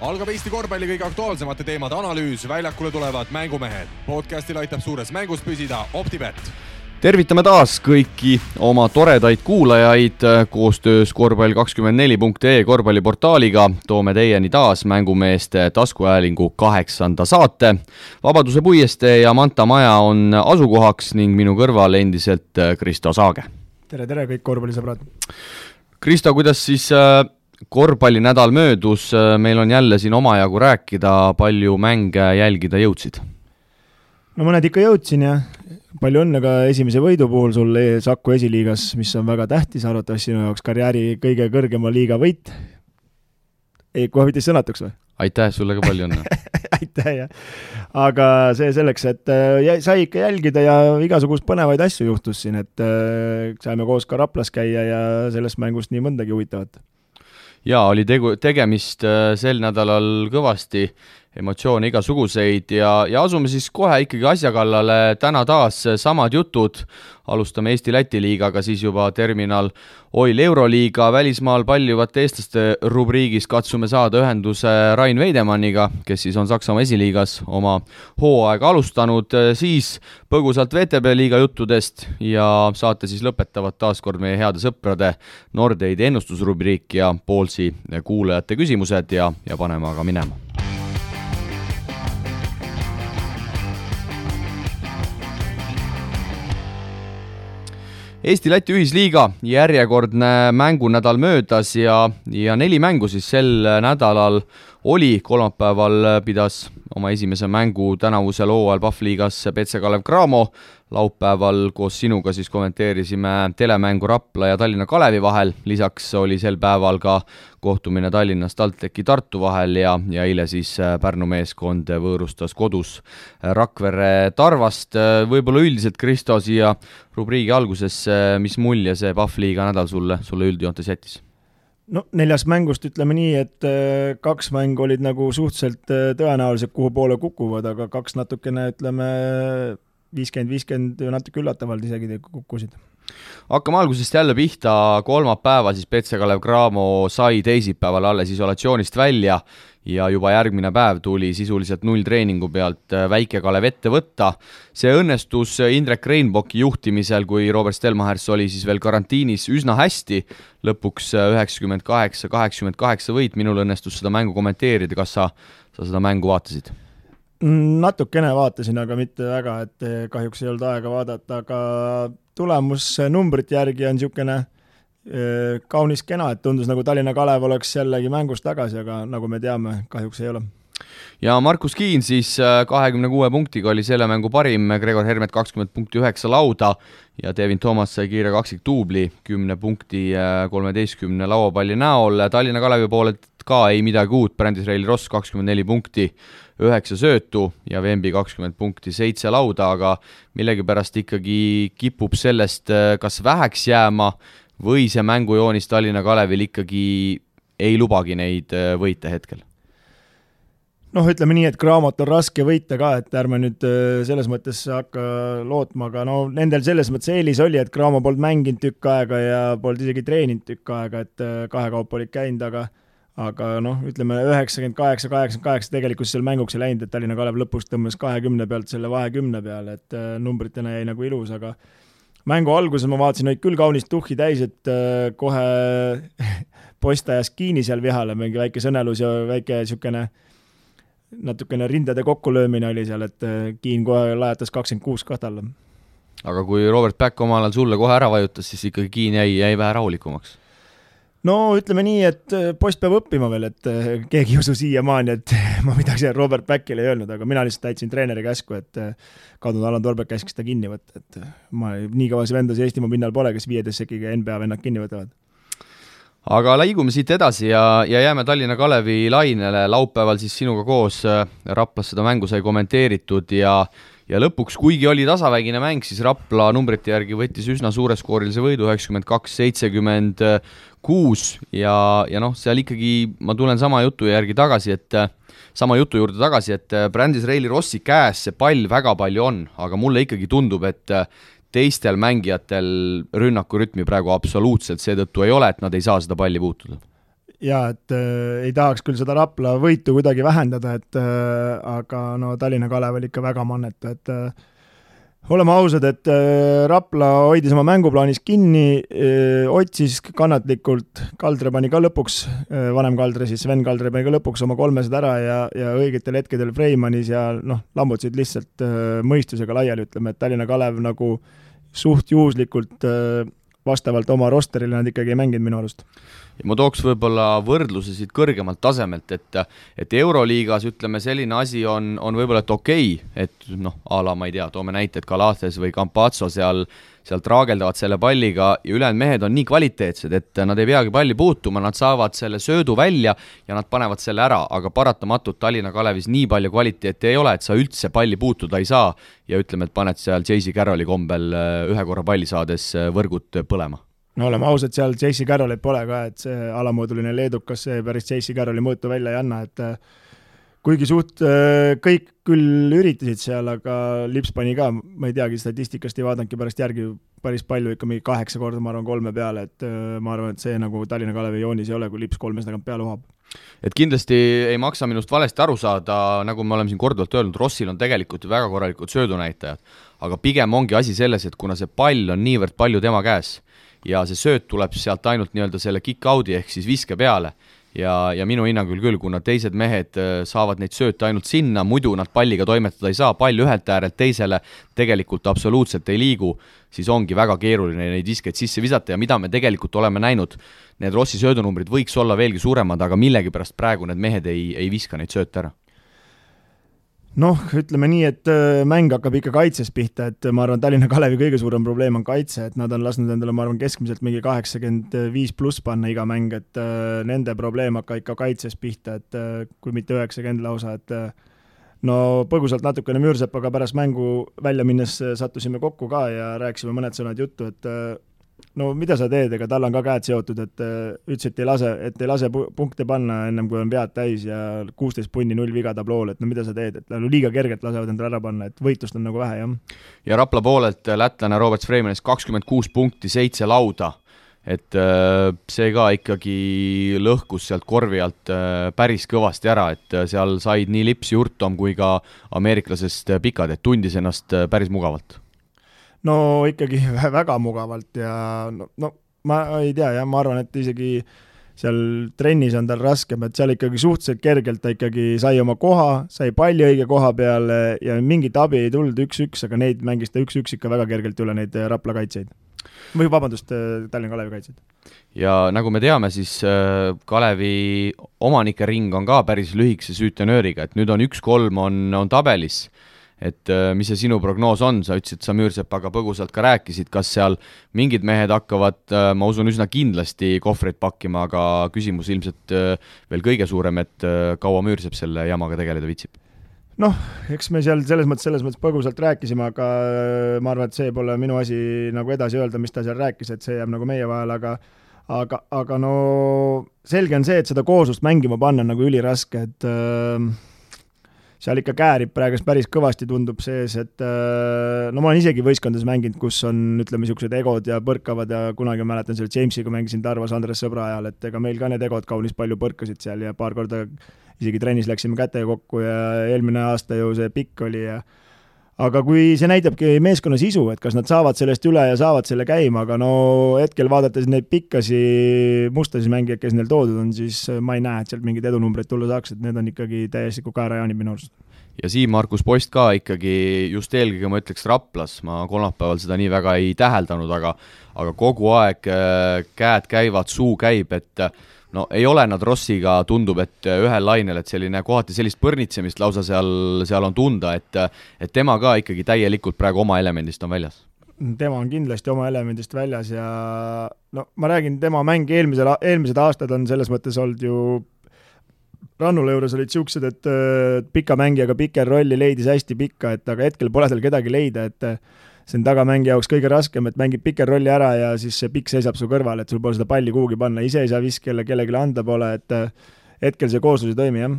Algab Eesti korvpalli kõige aktuaalsemate teemade analüüs, väljakule tulevad mängumehed. Podcastil aitab suures mängus püsida OpTibet. Tervitame taas kõiki oma toredaid kuulajaid koostöös korvpall24.ee korvpalliportaaliga. Toome teieni taas mängumeeste taskuhäälingu 8. saate. Vabaduse puiestee ja Manta maja on asukohaks ning minu kõrval endiselt Kristo Saage. Tere kõik korvpallisõbrad. Kristo, kuidas siis korvpallinädal möödus, meil on jälle siin omajagu rääkida, palju mänge jälgida jõudsid? No mõned ikka jõudsin ja palju õnne ka esimese võidu puhul sul Saku esiliigas, mis on väga tähtis, arvatavasti sinu jaoks karjääri kõige kõrgema liiga võit. Ei, kohe võitis sõnatuks või? Aitäh, sulle ka palju õnne. Aitäh, jah. Aga see selleks, et sai ikka jälgida ja igasugust põnevaid asju juhtus siin, et saime koos ka Raplas käia ja sellest mängust nii mõndagi huvitavat. Jaa, oli tegemist sel nädalal kõvasti, emotsioone igasuguseid ja asume siis kohe ikkagi asja kallale. Täna taas samad jutud. Alustame Eesti-Läti liigaga, siis juba terminal Oil Euroliiga välismaal paljuvate eestlaste rubriigis katsume saada ühenduse Rain Veidemanniga, kes siis on Saksamaa esiliigas oma hooaega alustanud, siis põgusalt VTB liiga juttudest ja saate siis lõpetavad taaskord meie heade sõprade Nordeidi ennustusrubriik ja Poolsi kuulajate küsimused ja paneme aga minema. Eesti-Läti ühisliiga järjekordne mängunädal möödas ja 4 mängu siis sel nädalal oli. Kolmapäeval pidas oma esimese mängu tänavusel hooajal Pahvliigas BC Kalev Cramo. Laupäeval koos sinuga siis kommenteerisime telemängu Rapla ja Tallinna Kalevi vahel. Lisaks oli sel päeval ka kohtumine Tallinnas TalTechi Tartu vahel ja eile siis Pärnu meeskond võõrustas kodus Rakvere Tarvast. Võib-olla üldiselt, Kristo, siia rubriigi alguses, mis mulje see Pahvliiga nädal sulle üldjoontes jättis? No 4 mängust ütleme nii, et 2 mängu olid nagu suhteliselt tõenäoliselt kuhu poole kukuvad, aga 2 natukene ütleme 50-50 natuke üllatavalt isegi kukkusid. Hakkame algusest jälle pihta. Kolmapäeva siis BC Kalev Cramo sai teisipäeval alles isolatsioonist välja ja juba järgmine päev tuli sisuliselt 0 treeningu pealt Väike Kalev ette võtta. See õnnestus Indrek Reinbocki juhtimisel, kui Robert Stelmachers oli siis veel karantiinis, üsna hästi. Lõpuks 98-88 võit. Minul õnnestus seda mängu kommenteerida. Kas sa seda mängu vaatasid? Natukene vaatasin, aga mitte väga, et kahjuks ei olnud aega vaadata, aga tulemus numbrite järgi on niisugune kaunis kena, et tundus nagu Tallinna Kalev oleks jällegi mängus tagasi, aga nagu me teame, kahjuks ei ole. Ja Markus Kiin siis 26 punktiga oli selle mängu parim, Gregor Hermet 20.9 lauda ja Devin Thomas sai kiire kaksiktuubli 10 punkti 13 lauapalli näol. Tallinna Kalevi poolelt ka ei midagi uut, Brandis Reili Ross 24 punkti 9 söötu ja Vembi 20 punkti 7 lauda, aga millegipärast ikkagi kipub sellest kas väheks jääma või see mängujoonis Tallinna Kalevil ikkagi ei lubagi neid võite hetkel? Noh, ütleme nii, et Cramot on raske võita ka, et ärme nüüd selles mõttes hakka lootma, aga no nendel selles mõttes eelis oli, et Cramo polnud mänginud tükk aega ja polnud isegi treeninud tükk aega, et 2 kaupa olid käinud, aga noh, ütleme 98-88 tegelikult seal mänguks ei läinud, et Tallinna Kalev lõpus tõmbas 20 pealt selle 20 peale, et numbritena jäi nagu ilus, aga mängu alguses ma vaatasin, olid küll kaunist tuhhi täis, et kohe postajas Kiini seal vihale, mingi väike sõnelus ja väike niisugune natukene rindade kokkulöömine oli seal, et Kiin kohe lajatas 26 kahtalla. Aga kui Robert Back omal ajal sulle kohe ära vajutas, siis ikkagi Kiin jäi vähe rahulikumaks? No ütleme nii, et post peab õppima veel, et keegi ei usu siiamaani, et ma midagi Robert Backile ei öelnud, aga mina lihtsalt täitsin treeneri käsku, et kadunud Alan Torbeck käskis ta kinni võtta, et ma nii kõvasi vendasi Eestimaa pinnal pole, kes 15 sekiga NBA vennad kinni võtavad. Aga liigume siit edasi ja jääme Tallinna Kalevi lainele. Laupäeval siis sinuga koos Raplas seda mängu sai kommenteeritud ja lõpuks, kuigi oli tasavägine mäng, siis Rapla numbrite järgi võttis üsna suure skoorilise võidu 92-76 ja noh, seal ikkagi ma tulen sama jutu juurde tagasi, et Brandis Reili Rossi käes see pall väga palju on, aga mulle ikkagi tundub, et teistel mängijatel rünnaku rütmi praegu absoluutselt seetõttu ei ole, et nad ei saa seda palli puutuda. jaa, et ei tahaks küll seda Rapla võitu kuidagi vähendada, et aga no Tallinna Kalev oli ikka väga mannetu, et oleme ausad, et Rapla hoidis oma mänguplaanis kinni, otsis kannatlikult, Kaldre pani ka lõpuks, vanem Kaldre siis, Sven Kaldre pani ka lõpuks oma 300 ära ja õigetel hetkedel Freimanis ja lammutasid lihtsalt mõistusega laiali, ütleme, et Tallinna Kalev nagu suht juhuslikult vastavalt oma rosterile nad ikkagi ei mänginud minu arust. Ja ma tooks võib-olla võrdluse siit kõrgemalt tasemelt, et Euroliigas ütleme selline asi on võib-olla et okei, et ala ma ei tea, toome näite, et Galates või Campazzo seal traageldavad selle palliga ja ülejäänud mehed on nii kvaliteetsed, et nad ei peagi palli puutuma, nad saavad selle söödu välja ja nad panevad selle ära, aga paratamatult Tallinna Kalevis nii palju kvaliteeti ei ole, et sa üldse palli puutuda ei saa ja ütleme, et paned seal J.C. Carrolli kombel ühe korra palli saades võrgud põlema. No oleme ausad, seal J.C. Carrollit pole ka, et see alamooduline leedukas see päris J.C. Carrolli mõõtu välja ei anna, et kuigi suht kõik küll üritasid seal, aga Lips pani ka, ma ei teagi, statistikast ei vaadanudki pärast järgi päris palju, ikka mingi 8 korda, ma arvan, 3 peale, et ma arvan, et see nagu Tallinna Kalevi joonis ei ole, kui Lips 3 tagant peale uhab. Et kindlasti ei maksa minust valesti aru saada, nagu me oleme siin korduvalt öelnud, Rossil on tegelikult väga korralikud söödunäitajad, aga pigem ongi asi selles, et kuna see pall on niivõrd palju tema käes ja see sööt tuleb sealt ainult nii-öelda selle kick-out'i ehk siis viske peale, ja minu hinnangul küll, kuna teised mehed saavad neid sööte ainult sinna, muidu nad palliga toimetada ei saa, pall ühelt äärelt teisele tegelikult absoluutselt ei liigu, siis ongi väga keeruline neid viskeid sisse visata ja mida me tegelikult oleme näinud, need Rossi söödunumbrid võiks olla veelgi suuremad, aga millegipärast praegu need mehed ei viska neid sööte ära. Ütleme nii, et mäng hakkab ikka kaitses pihta, et ma arvan, Tallinna Kalevi kõige suurem probleem on kaitse, et nad on lasknud endale, ma arvan, keskmiselt mingi 85+ panna iga mäng, et nende probleem hakkab ikka kaitses pihta, et kui mitte 90 lausa, et põgusalt natukene Müürsepaga pärast mängu välja minnes sattusime kokku ka ja rääkisime mõned sõnad juttu, et mida sa teed, ega tal on ka käed seotud, et ütles, et ei lase punkte panna ennem kui on vead täis ja 16 punni 0 viga tablool, et mida sa teed, et liiga kergelt lasevad endale ära panna, et võitlust on nagu vähe, jah. Ja Rapla poolelt lätlane Robert Freimanis 26 punkti, 7 lauda, et see ka ikkagi lõhkus sealt korvi alt päris kõvasti ära, et seal said nii Lips, Jurtom kui ka ameeriklasest pikad, et tundis ennast päris mugavalt. Ikkagi väga mugavalt ja ma ei tea, ja ma arvan, et isegi seal trennis on tal raskem, et seal ikkagi suhteliselt kergelt ta ikkagi sai oma koha, sai palli õige koha peale ja mingit abi ei tulnud 1-1, aga neid mängis ta 1-1 ikka väga kergelt üle neid Rapla kaitseid. Või vabandust, Tallinna Kalevi kaitseid. Ja nagu me teame, siis Kalevi omanike ring on ka päris lühikese süütenööriga, et nüüd on 1-3 on tabelis. Et mis see sinu prognoos on, sa ütlesid, sa Müürsepaga põgusalt ka rääkisid, kas seal mingid mehed hakkavad, ma usun, üsna kindlasti kohvreid pakkima, aga küsimus ilmselt veel kõige suurem, et kaua Müürsepp selle jamaga tegeleda vitsib? Eks me seal selles mõttes põgusalt rääkisime, aga ma arvan, et see pole minu asi nagu edasi öelda, mis ta seal rääkis, et see jääb nagu meie vahel, aga selge on see, et seda kooslust mängima panna on nagu üliraske, et seal ikka käärib praegu päris kõvasti tundub sees, et ma olen isegi võistkondades mänginud, kus on, ütleme, niisugused egod ja põrkavad ja kunagi mäletan seal Jamesiga mängisin Tarvas Andres Sõbra ajal, et ega meil ka need egod kaunis palju põrkasid seal ja paar korda isegi trennis läksime kätega kokku ja eelmine aasta ju see pikk oli aga kui see näitabki meeskonna sisu, et kas nad saavad sellest üle ja saavad selle käima, aga hetkel vaadates neid pikkasi mustasi mängijaid, kes neil toodud on, siis ma ei näe, et sealt mingid edunumbreid tulla saaks, et need on ikkagi täiesti kaerajaanid minu arust. Ja Siim-Markus Post ka ikkagi just eelkõige ma ütleks Raplas, ma kolmapäeval seda nii väga ei täheldanud, aga kogu aeg käed käivad, suu käib, et ei ole nad Rossiga, tundub, et ühel lainel, et selline kohati sellist põrnitsemist lausa seal on tunda, et tema ka ikkagi täielikult praegu oma elemendist on väljas. Tema on kindlasti oma elemendist väljas ja ma räägin, tema mäng eelmised aastad on selles mõttes olnud ju Rannula juures olid siuksed, et pika mängijaga piker rolli leidis hästi pikka, et aga hetkel pole tal kedagi leida, et see on tagamängija jaoks kõige raskem, et mängib piker rolli ära ja siis see pikk seisab su kõrval, et sul pole seda palli kuhugi panna, ise ei saa viskele, kellelegi anda pole, et hetkel see kooslus ei toimi, jah.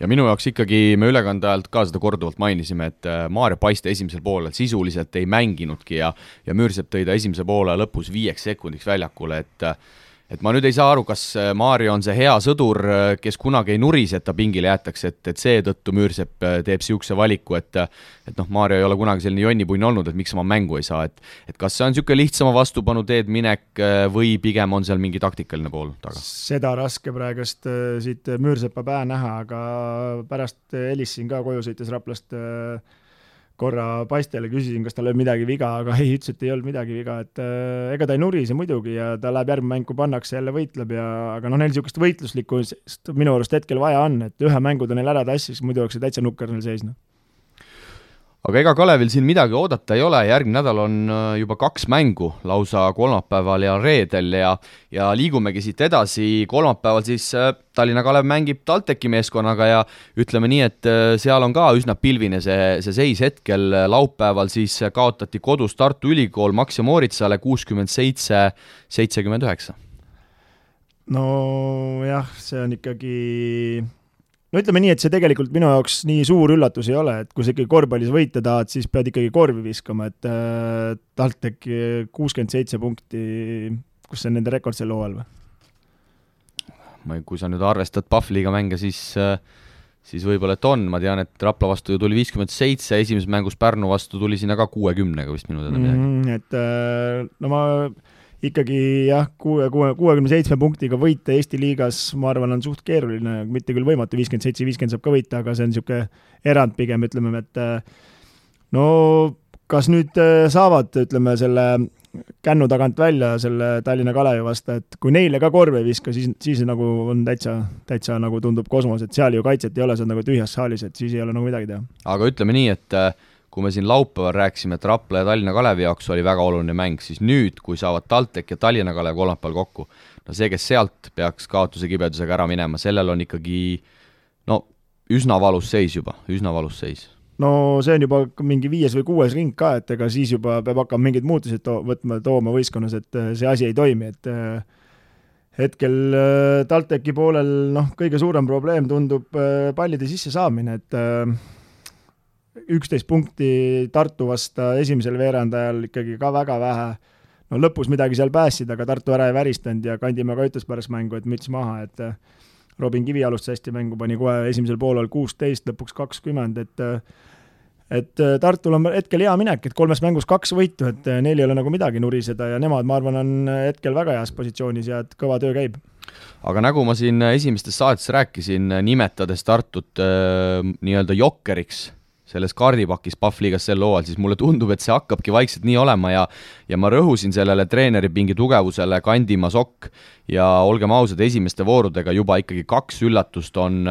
Ja minu jaoks ikkagi me ülekande ajalt ka seda korduvalt mainisime, et Maarja Paiste esimesel poolel sisuliselt ei mänginudki ja Müürsepp tõi ta esimese poole lõpus 5 sekundiks väljakule, et ma nüüd ei saa aru, kas Mario on see hea sõdur, kes kunagi ei nurise, et ta pingile jäetakse, et seetõttu Müürsepp teeb siukse valiku, et noh, Mario ei ole kunagi selline jonnipunn olnud, et miks ma mängu ei saa, et kas see on siuke lihtsama vastupanu teed minek või pigem on seal mingi taktikaline pool taga? Seda raske praegust siit Müürsepa päe näha, aga pärast helistasin ka koju sõites Raplast korra paistele, küsisin, kas tal oli midagi viga, aga ei, ütles, et ei olnud midagi viga, et ega ta ei nurise muidugi ja ta läheb järgmine mäng, kui pannakse jälle võitleb aga neil niisugust võitluslikust minu arust hetkel vaja on, et ühe mängu ta neil ära tassis, muidu oleks see täitsa nukker neil seisnud. Aga ega Kalevil siin midagi oodata ei ole, järgmine nädal on juba 2 mängu, lausa kolmapäeval ja reedel ja liigumegi siit edasi. Kolmapäeval siis Tallinna Kalev mängib TalTechi meeskonnaga ja ütleme nii, et seal on ka üsna pilvine see seis hetkel. Laupäeval siis kaotati kodus Tartu Ülikool Max ja Mooritsale 67-79. No jah, see on ikkagi... No ütleme nii, et see tegelikult minu jaoks nii suur üllatus ei ole, et kui sa ikkagi korvpallis võita tahad, siis pead ikkagi korvi viskama, et TalTech 67 punkti, kus see on nende rekord sel hooajal või? Kui sa nüüd arvestad Pahvliga mänge, siis võib-olla, et on. Ma tean, et Rapla vastu ju tuli 57, esimeses mängus Pärnu vastu tuli sinna ka 60-ga vist minu teada midagi. No ma... ikkagi jah, 67 punktiga võita Eesti liigas, ma arvan, on suht keeruline, mitte küll võimatu, 57-50 saab ka võita, aga see on niisugune erand pigem, ütleme, et no kas nüüd saavad, ütleme, selle kännu tagant välja selle Tallinna Kalevi vastu, et kui neile ka korve ei viska, siis nagu on täitsa nagu tundub kosmos, et seal ju kaitset ei ole, see on nagu tühjas saalis, et siis ei ole nagu midagi teha. Aga ütleme nii, et kui me siin laupäeval rääkisime, et Rapla ja Tallinna Kalevi jaoks oli väga oluline mäng, siis nüüd, kui saavad TalTech ja Tallinna Kalev kolmapäeval kokku, no see, kes sealt peaks kaotuse kibedusega ära minema, sellel on ikkagi üsna valus seis juba, üsna valus seis. No see on juba mingi 5. või 6. ring ka, et ega siis juba peab hakkama mingid muutused tooma võistkonnas, et see asi ei toimi, et hetkel TalTechi poolel kõige suurem probleem tundub pallide sisse saamine, et 11 punkti Tartu vasta esimesel veerandajal ikkagi ka väga vähe. No lõpus midagi seal päässid, aga Tartu ära ei väristanud ja Kandimäe ka ütles pärast mängu, et müts maha, et Robin Kivi alustas hästi mängu, pani kohe esimesel poolel 16, lõpuks 20, et Tartul on hetkel hea minek, et 3 mängus 2 võitu, et neil ei ole nagu midagi nuriseda ja nemad, ma arvan, on hetkel väga heas positsioonis ja et kõva töö käib. Aga nagu ma siin esimestes saates rääkisin, nimetades Tartut nii-öelda jokkeriks selles kaardipakis Pahvliigas sel hooajal, siis mulle tundub, et see hakkabki vaikselt nii olema ja ma rõhusin sellele treeneri pingi tugevusele Kandimäe Sokk ja olgem ausad, esimeste voorudega juba ikkagi 2 üllatust on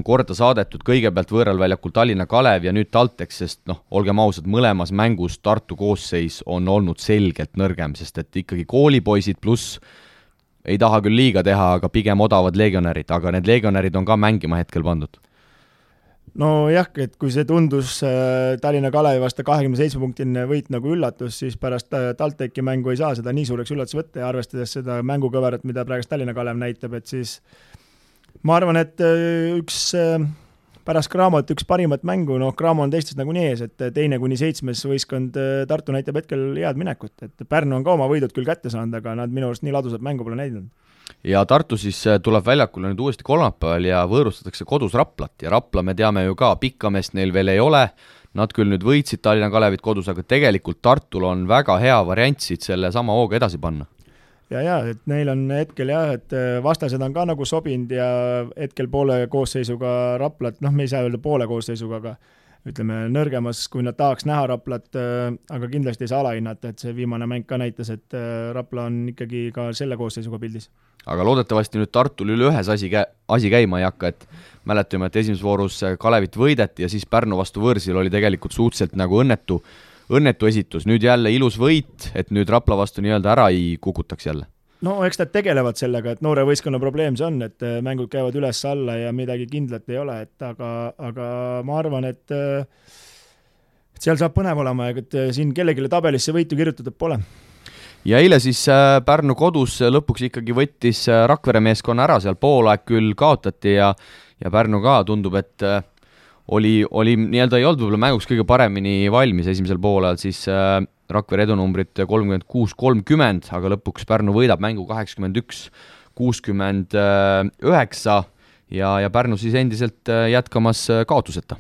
korda saadetud, kõigepealt võõralväljakul Tallinna Kalev ja nüüd TalTech, sest olgem ausad, mõlemas mängus Tartu koosseis on olnud selgelt nõrgem, sest et ikkagi koolipoisid pluss ei taha küll liiga teha, aga pigem odavad legionärid, aga need legionärid on ka mängima hetkel pandud. No jah, et kui see tundus Tallinna Kalevi vasta 27-punktiline võit nagu üllatus, siis pärast TalTechi mängu ei saa seda nii suureks üllatus võtta ja arvestades seda mängukõverat, mida praegust Tallinna Kalev näitab, et siis ma arvan, et pärast Cramot üks parimat mängu, Cramo on teistest nagu nii ees, et 2-7 võistkond Tartu näitab hetkel head minekut, et Pärnu on ka oma võidud küll kätte saanud, aga nad minu arust nii ladusat mängu pole näidanud. Ja Tartu siis tuleb väljakule nüüd uuesti kolmapäeval ja võõrustatakse kodus Raplat ja Rapla me teame ju ka, pikkamest neil veel ei ole, nad küll nüüd võitsid Tallinna Kalevit kodus, aga tegelikult Tartul on väga hea variant siit selle sama hooga edasi panna. Ja, et neil on hetkel et vastased on ka nagu sobinud ja hetkel poole koosseisuga Raplat, me ei saa öelda poole koosseisuga, aga ütleme nõrgemas, kui nad tahaks näha Raplat, aga kindlasti ei saa alahinnata, et see viimane mäng ka näitas, et Rapla on ikkagi ka selle koosseisuga pildis. Aga loodetavasti nüüd Tartul üle ühes asi käima ei hakka, et mäletame, et esimeses voorus Kalevit võideti ja siis Pärnu vastu võõrsil oli tegelikult suhteliselt nagu õnnetu esitus. Nüüd jälle ilus võit, et nüüd Rapla vastu nii-öelda ära ei kukutaks jälle. No eks nad tegelevad sellega, et noore võistkonna probleem see on, et mängud käivad üles alla ja midagi kindlat ei ole, et aga ma arvan, et seal saab põnev olema, et siin kellelegi tabelisse võitu kirjutatud pole. Ja eile siis Pärnu kodus lõpuks ikkagi võttis Rakvere meeskonna ära, seal poolaeg küll kaotati ja Pärnu ka tundub, et oli nii-öelda ei olnud võib-olla mänguks kõige paremini valmis esimesel poolajal, siis Rakvere edunumbrit 36-30, aga lõpuks Pärnu võidab mängu 81-69 ja Pärnu siis endiselt jätkamas kaotuseta.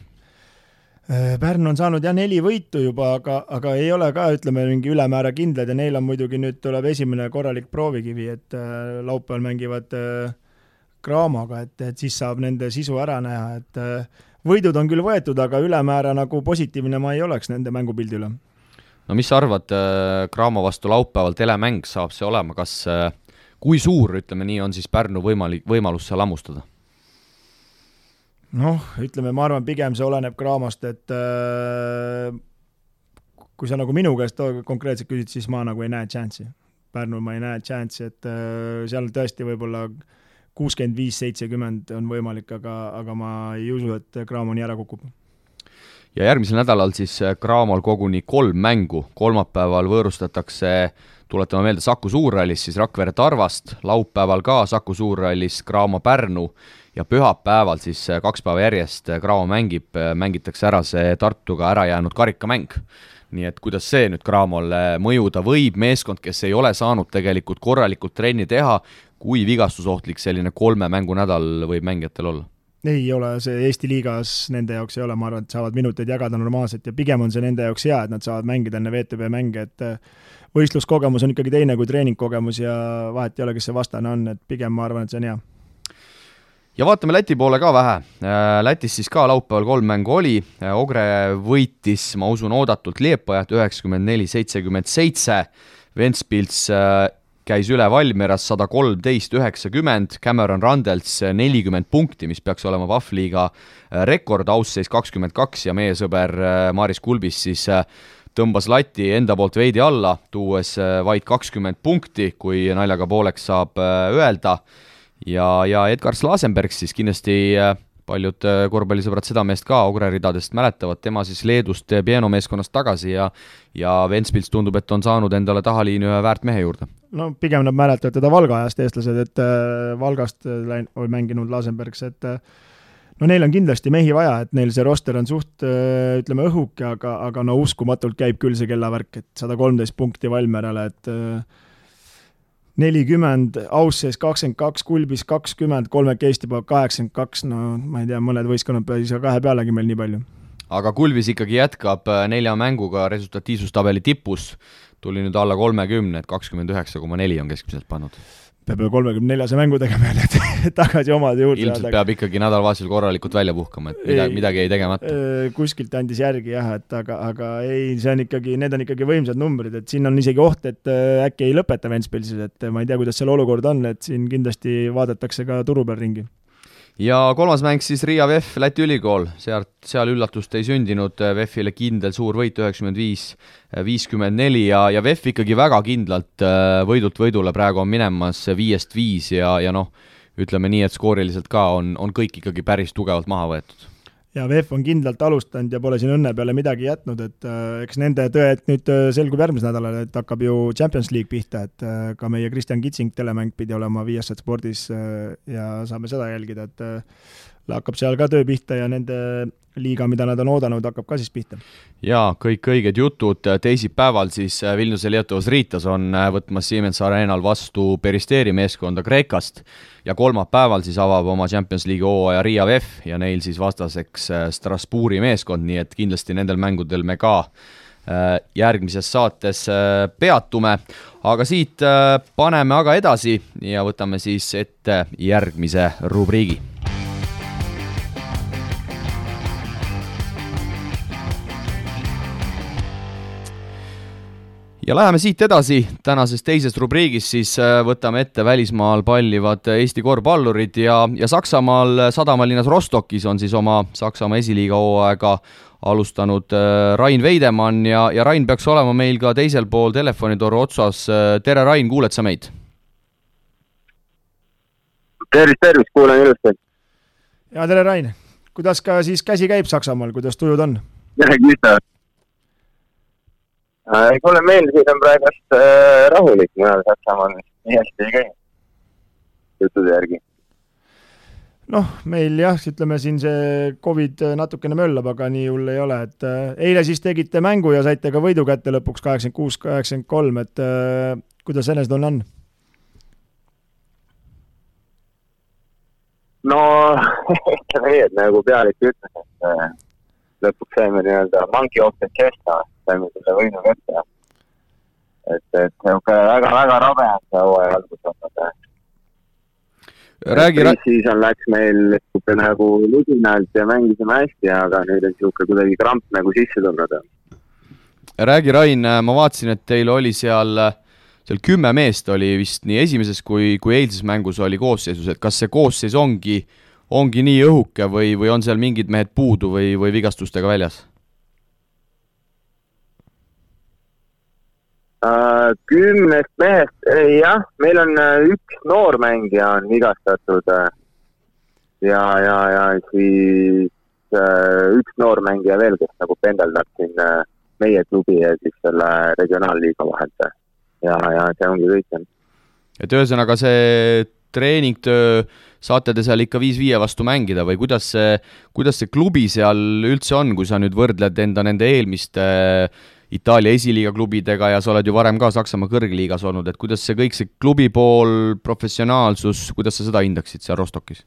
Pärnu on saanud 4 võitu juba, aga ei ole ka, ütleme, mingi ülemäära kindlad ja neil on muidugi nüüd tuleb esimene korralik proovikivi, et laupäeval mängivad Craamoga, et siis saab nende sisu ära näha, et võidud on küll võetud, aga ülemäära nagu positiivne ma ei oleks nende mängupildi üle. No mis sa arvad, Craamo vastu laupäeval telemäng saab see olema, kas kui suur, ütleme nii, on siis Pärnu võimalus seal lammustada? Noh, ütleme, ma arvan, pigem see oleneb Craamost, et kui sa nagu minu käest konkreetselt küsid, siis ma nagu ei näe chanssi. Pärnul ma ei näe chanssi, et seal tõesti võib-olla 65-70 on võimalik, aga ma ei usu, et Craamo nii ära kukub. Ja järgmisel nädalal siis Craamol koguni 3 mängu. Kolmapäeval võõrustatakse, tuletame meelde, Saku Suurrallis siis Rakvere Tarvast, laupäeval ka Saku Suurrallis Craamo Pärnu ja pühapäeval siis 2 päeva järjest Craamo mängitakse ära see Tartuga ära jäänud karikamäng. Nii et kuidas see nüüd Craamole mõjuda võib, meeskond, kes ei ole saanud tegelikult korralikult trenni teha, kui vigastusohtlik selline 3 mängu nädal võib mängijatel olla? Ei ole, see Eesti liigas nende jaoks ei ole, ma arvan, et saavad minuteid jagada normaalselt ja pigem on see nende jaoks hea, et nad saavad mängida enne VTB mänge, et võistluskogemus on ikkagi teine kui treeningkogemus ja vahet ei ole, kes see vastane on, et pigem ma arvan, et see on hea. Ja vaatame Läti poole ka vähe. Lätis siis ka laupäeval 3 mängu oli. Ogre võitis, ma usun, oodatult Liepajat 94-77. Ventspils käis üle Valmieras 113-90, Cameron Randels 40 punkti, mis peaks olema Vahvliiga rekord, ausseis 22 ja meie sõber Maris Kulbis siis tõmbas lati enda poolt veidi alla, tuues vaid 20 punkti, kui naljaga pooleks saab öelda. Ja Edgar Slasenberg siis kindlasti paljud korvpallisõbrad seda meest ka Ogre ridadest mäletavad, tema siis Leedust Pieno meeskonnast tagasi ja Ventspils tundub, et on saanud endale tahaliini ühe väärt mehe juurde. No pigem nad mäletavad teda Valga ajast eestlased, et Valgast oli mänginud Lasenbergs, et no neil on kindlasti mehi vaja, et neil see roster on suht, ütleme, õhuke, aga no uskumatult käib küll see kellavärk, et 113 punkti Valmerale, et 40, Aussees 22, Kulbis 20, 3 Eesti pool 82, no ma ei tea, mõned võistkonnad peale 2 pealegi meil nii palju. Aga Kulbis ikkagi jätkab 4 mänguga resultatiivsustabeli tipus, tuli nüüd alla 30, et 29,4 on keskmiselt pannud. Peab 34 mängu tegema, et tagasi omade juurde. Ilmselt peab ikkagi nädalavahetusel korralikult välja puhkama, et midagi ei tegemata. Kuskilt andis järgi jah, et aga ei, see on ikkagi, need on ikkagi võimsad numbrid, et siin on isegi oht, et äkki ei lõpeta Ventspilsis, et ma ei tea, kuidas seal olukord on, et siin kindlasti vaadatakse ka turu peal ringi. Ja 3. mäng siis Riia VEF, Läti ülikool, seal üllatust ei sündinud, VEF-ile kindel suur võit 95-54 ja VEF ikkagi väga kindlalt võidult võidule praegu on minemas 5-5 ja noh, ütleme nii, et skooriliselt ka on kõik ikkagi päris tugevalt maha võetud. Ja VEF on kindlalt alustanud ja pole siin õnne peale midagi jätnud, et eks nende tõed nüüd selgub järgmisel nädalal, et hakkab ju Champions League pihta, et ka meie Kristjan Kitsing telemäng pidi olema Viasat Spordis ja saame seda jälgida, et hakkab seal ka töö pihta ja nende liiga, mida nad on oodanud, hakkab ka siis pihta. Ja kõik õiged jutud, teisipäeval siis Vilniuse Lietovas Riitas on võtmas Siemens Arenal vastu Peristeri meeskonda Kreekast ja kolmapäeval siis avab oma Champions League hooaja Riia VEF ja neil siis vastaseks Strasbourgi meeskond, nii et kindlasti nendel mängudel me ka järgmises saates peatume, aga siit paneme aga edasi ja võtame siis ette järgmise rubriigi. Ja läheme siit edasi, tänases teises rubriigis siis võtame ette välismaal pallivad Eesti korvpallurid ja Saksamaal sadamalinnas Rostokis on siis oma Saksamaa esiliiga hooaega alustanud Rain Veidemann ja Rain peaks olema meil ka teisel pool telefonitoru otsas. Tere Rain, kuuled sa meid? Tervist, kuulen ilusti. Ja tere Rain, kuidas ka siis käsi käib Saksamaal, kuidas tujud on? Tere, Krista. Kuule meil siin on praegust rahulik, mujal Saksamaal nii hästi ei käi juttude järgi. Noh, meil jah, ütleme siin see Covid natukene möllab, aga nii hull ei ole, et eile siis tegite mängu ja saite ka võidu kätte lõpuks 86-83, et kuidas enesetunne on? No, ütleme nii, et nagu pealik ütles, et lõpuks saime nii-öelda monkey off the chest, saime selle võidu kätte. Et väga rabe on see hooaja algus olnud. Pre-season läks meil nagu ludinalt ja mängisime hästi, aga nüüd on siuke kuidagi kramp nagu sisse tulnud. Räägi, Rain, ma vaatasin, et teil oli seal 10 meest oli vist nii esimeses kui eilses mängus oli koosseisus, et kas see koosseis ongi nii õhuke või on seal mingid mehed puudu või vigastustega väljas? 10 mehest, jah, meil on üks noormängija on vigastatud ja siis üks noormängija veel, kes nagu pendeldab siin meie klubi ja siis selle regionaalliiga vahelt. Ja see ongi kõik. Et ühesõnaga see treeningtöö saate te seal ikka 5-5 vastu mängida või kuidas see klubi seal üldse on, kui sa nüüd võrdled enda nende eelmiste Itaalia esiliiga klubidega ja sa oled ju varem ka Saksamaa kõrgliigas olnud, et kuidas see kõik see klubi pool, professionaalsus, kuidas sa seda hindaksid seal Rostokis?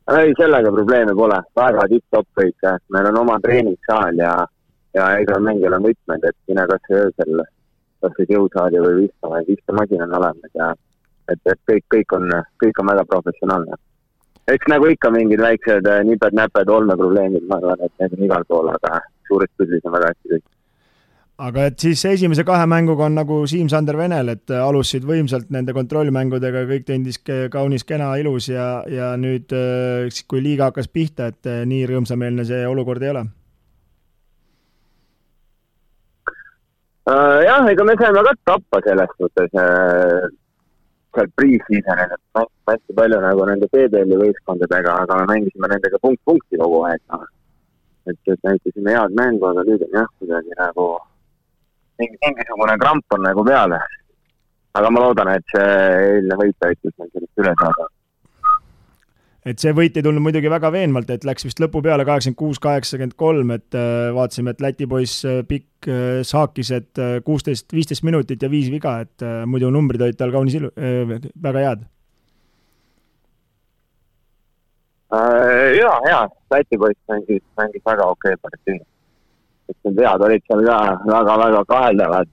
Ei, sellega probleeme pole. Väga tipp-top kõik. Meil on oma treeningsaal ja ega mängijal on võtmed, et sina kas öösel jõusaali või vistamasin on olemas ja et kõik on väga professionaalne. Eks nagu ikka mingid väiksed niped-näped olmeprobleemid, ma arvan, et need on igal pool, aga suurest pildis on väga hästi kõik. Aga et siis esimese 2 mänguga on nagu Siim-Sander Venel, et alustasid võimsalt nende kontrollmängudega, kõik tendis kaunis kena ilus ja nüüd kui liiga hakkas pihta, et nii rõõmsameelne see olukord ei ole? Jah, ega me saime ka tappa selles suhtes seal pre-seasonil, et hästi palju nagu nende PBL-i võistkondadega, aga me mängisime nendega punkti kogu aeg. Et näitasime head mängu, aga nüüd on jah, kuidagi nagu mingisugune kramp on nagu peale. Aga ma loodan, et see eilne võit aitas meil sellest üle saada. Et see võit ei tulnud muidugi väga veenvalt, et läks vist lõpu peale 86-83, et vaatasime, et Läti poiss pikk saakis, et 16-15 minutit ja 5 viga, et muidu numbrid olid tal kaunis väga head. Jaa, Läti poiss mängis väga okei partii. Et need vead olid seal ka väga kaheldavad,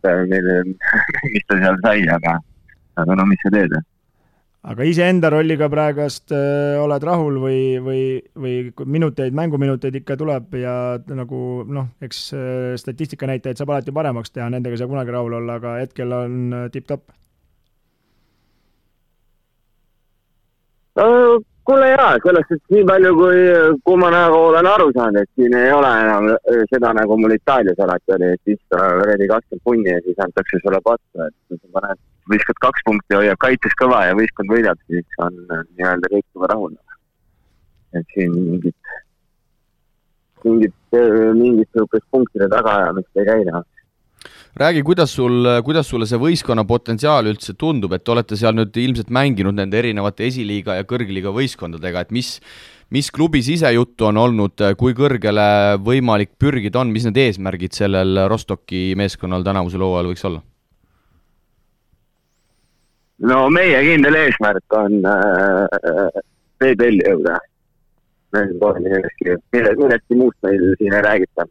mis ta seal sai, aga no mis sa teed? Aga iseenda rolliga praegast oled rahul või mänguminuteid ikka tuleb ja nagu eks statistika näitajaid saab alati paremaks teha, nendega saab kunagi rahul olla, aga hetkel on tipp-top. Kuule jaa, sellest, et nii palju kui ma nagu olen aru saanud, et siin ei ole enam seda nagu mul Itaalias alati oli, et siis reedi 20 punni ja siis antakse sulle pattu, et sa paned võistkond 2 punkti hoiab kaitses kõva ja võistkond võidab, siis on nii-öelda kõik juba rahul. Et siin mingit punktide tagaajamist ei käida. Räägi, kuidas sulle see võistkonna potentsiaal üldse tundub, et olete seal nüüd ilmselt mänginud nende erinevate esiliiga ja kõrgliiga võistkondadega, et mis klubi sisejuttu on olnud, kui kõrgele võimalik pürgida on, mis need eesmärgid sellel Rostoki meeskonnal tänavusel hooajal võiks olla? No meie kindel eesmärk on PBL-i jõuda. Millestki muust meil siin ei räägita.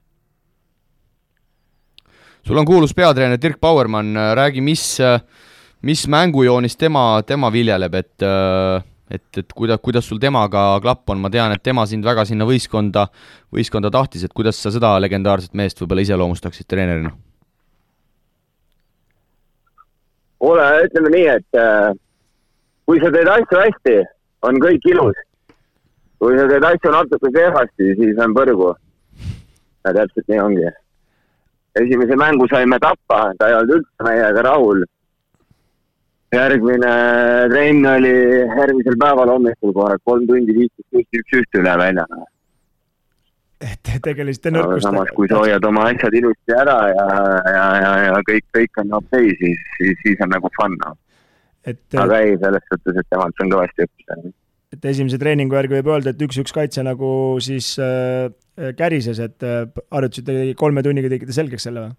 Sul on kuulus peatreener Dirk Bauermann, räägi, mis mängujoonis tema viljeleb, et kuidas sul temaga klapp on, ma tean, et tema sind väga sinna võistkonda tahtis, et kuidas sa seda legendaarset meest võib-olla iseloomustaksid treenerina? Ütleme nii, et kui sa teed asju hästi, on kõik ilus. Kui sa teed asju natuke kehvasti, siis on põrgu. Ja täpselt nii ongi. Esimese mängu saime tappa, ta ei olnud üldse meiega rahul. Järgmine trenn oli järgmisel päeval hommikul kohe 3 tundi 15 üle väljana. Et tegelisite nõrkustega. Samas, kui sa hoiad oma asjad ilusti ära ja kõik on okei, siis on nagu fun. aga ei, selles suhtes, et temalt on kõvasti õppida. Et esimese treeningu järgi võib öelda, et 1-1 kaitse nagu siis kärises, et harjutasite 3 tunniga tegite selgeks selle või?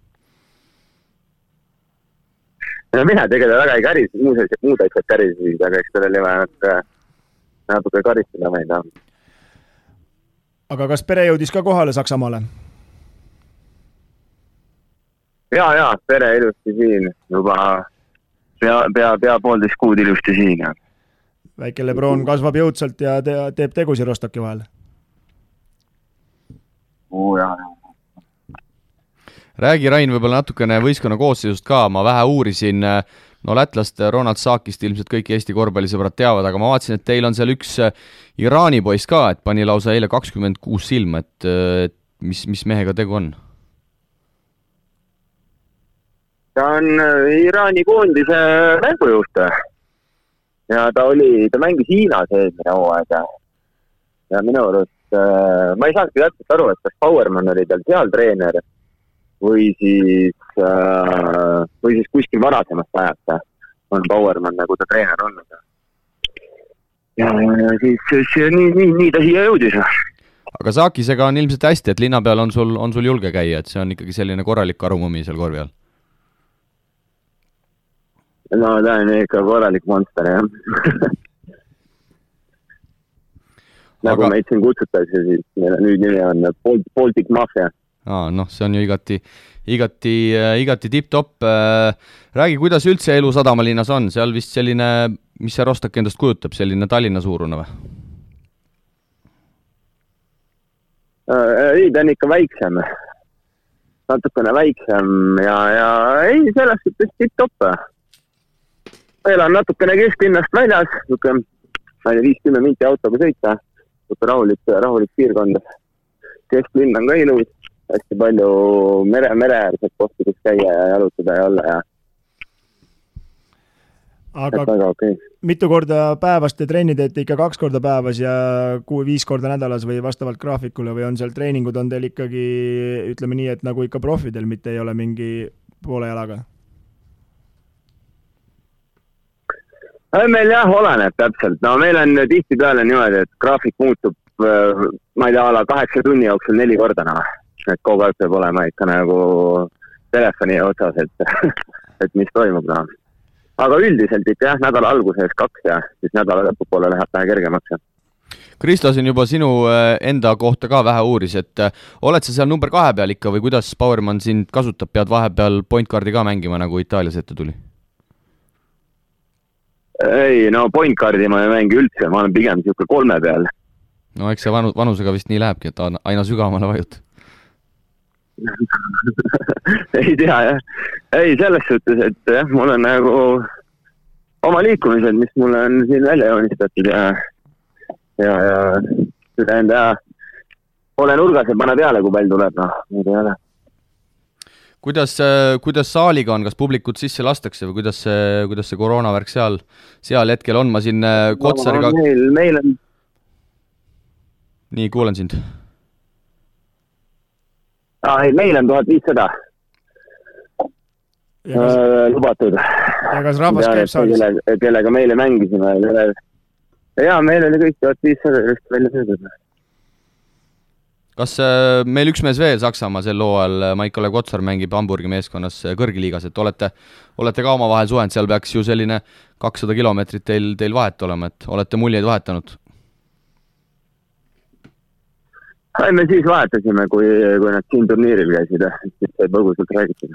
No mina tegelikult väga ei käris, muud asjad kärisid, aga eks sellel ei vaja natuke karistada meid. Aga kas pere jõudis ka kohale Saksamaale? Ja, pere ilusti siin, juba pea 1,5 kuud ilusti siin. Ja. Väike Lebron kasvab jõudsalt ja teeb tegusi Rostoki vahel. Ja. Räägi, Rain, võib-olla natukene võistkonna koosseisust ka, ma vähe uurisin, no lätlast Ronald Saakist ilmselt kõik Eesti korvpallisõbrad teavad, aga ma vaatasin, et teil on seal üks Iraani poiss ka, et pani lausa eile 26 silma, et mis mehega tegu on? Ta on Iraani koondise mängujuht ja ta mängis Hiinas eelmine hooaeg ja minu arust ma ei saanudki täpselt aru, et kas Powerman oli tal seal treener või siis kuskil varasemast ajast on Powerman nagu ta treener olnud. Ja siis nii ta siia jõudis. Aga Saakisega on ilmselt hästi, et linna peal on sul julge käia, et see on ikkagi selline korralik arumumi seal korvi all. No ta on ikka korralik monster, jah. Nagu meid siin kutsutakse, siis meil nüüd nimi on Baltic Mafia. Noh, see on ju igati tipp-topp. Räägi, kuidas üldse elu Sadamalinnas on? Seal vist selline, mis see Rostok endast kujutab, selline Tallinna suurune või? Ei, ta on ikka väiksem. Natukene väiksem ja ei, selles suhtes tipp-topp. Elan natukene kesklinnast väljas, 50 minti autoga sõita, rahulik piirkond. Kesklinn on ka ilus. Hästi palju mereäärsed kohti, kus käia ja jalutada ja olla. Aga väga okay. Mitu korda päevas te trenni teete ikka 2 korda päevas ja 5 korda nädalas või vastavalt graafikule või on seal treeningud on teil ikkagi, ütleme nii, et nagu ikka profidel, mitte ei ole mingi poole jalaga? Meil jah, oleneb täpselt. No meil on tihti peale niimoodi, et graafik muutub, ma ei tea, 8 tunni jooksul 4 korda. Et kogu aeg peab olema ikka nagu telefoni otsas, et mis toimub. No. Aga üldiselt ikka jah, nädala alguses 2 ja siis nädala lõpupoole läheb vähe kergemaks. Kristo siin juba sinu enda kohta ka vähe uuris, et oled sa seal number 2 peal ikka või kuidas Powerman sind kasutab, pead vahepeal point guardi ka mängima, nagu Itaalias ette tuli? Ei, no point guardi ma ei mängi üldse, ma olen pigem siuke 3 peal. No eks see vanusega vist nii lähebki, et aina sügavamale vajut. Ei tea, jah. Ei, selles suhtes, et jah, mul on nagu oma liikumised, mis mulle on siin välja joonistatud ja seda enda ole nurgas ja pane peale, kui pall tuleb. No, kuidas saaliga on, kas publikut sisse lastakse või kuidas see koroonavärk seal hetkel on? Ma siin Kotsariga... Meil on... Nii, kuulen sind. Meil on 1500 lubatud. Ja kas rahvas käib saalis? Kellega meile mängisime. Ja, meil oli kõik 1500 välja söödud. Kas meil üks mees veel Saksamaa sel hooajal, Maik-Olev Kotsar mängib Hamburgi meeskonnas kõrgliigas, et olete ka omavahel suhend, seal peaks ju selline 200 kilomeetrit teil vahet olema, et olete muljeid vahetanud? Me siis vahetasime, kui nad siin turniiril käisid, siis sai põgusalt räägitud.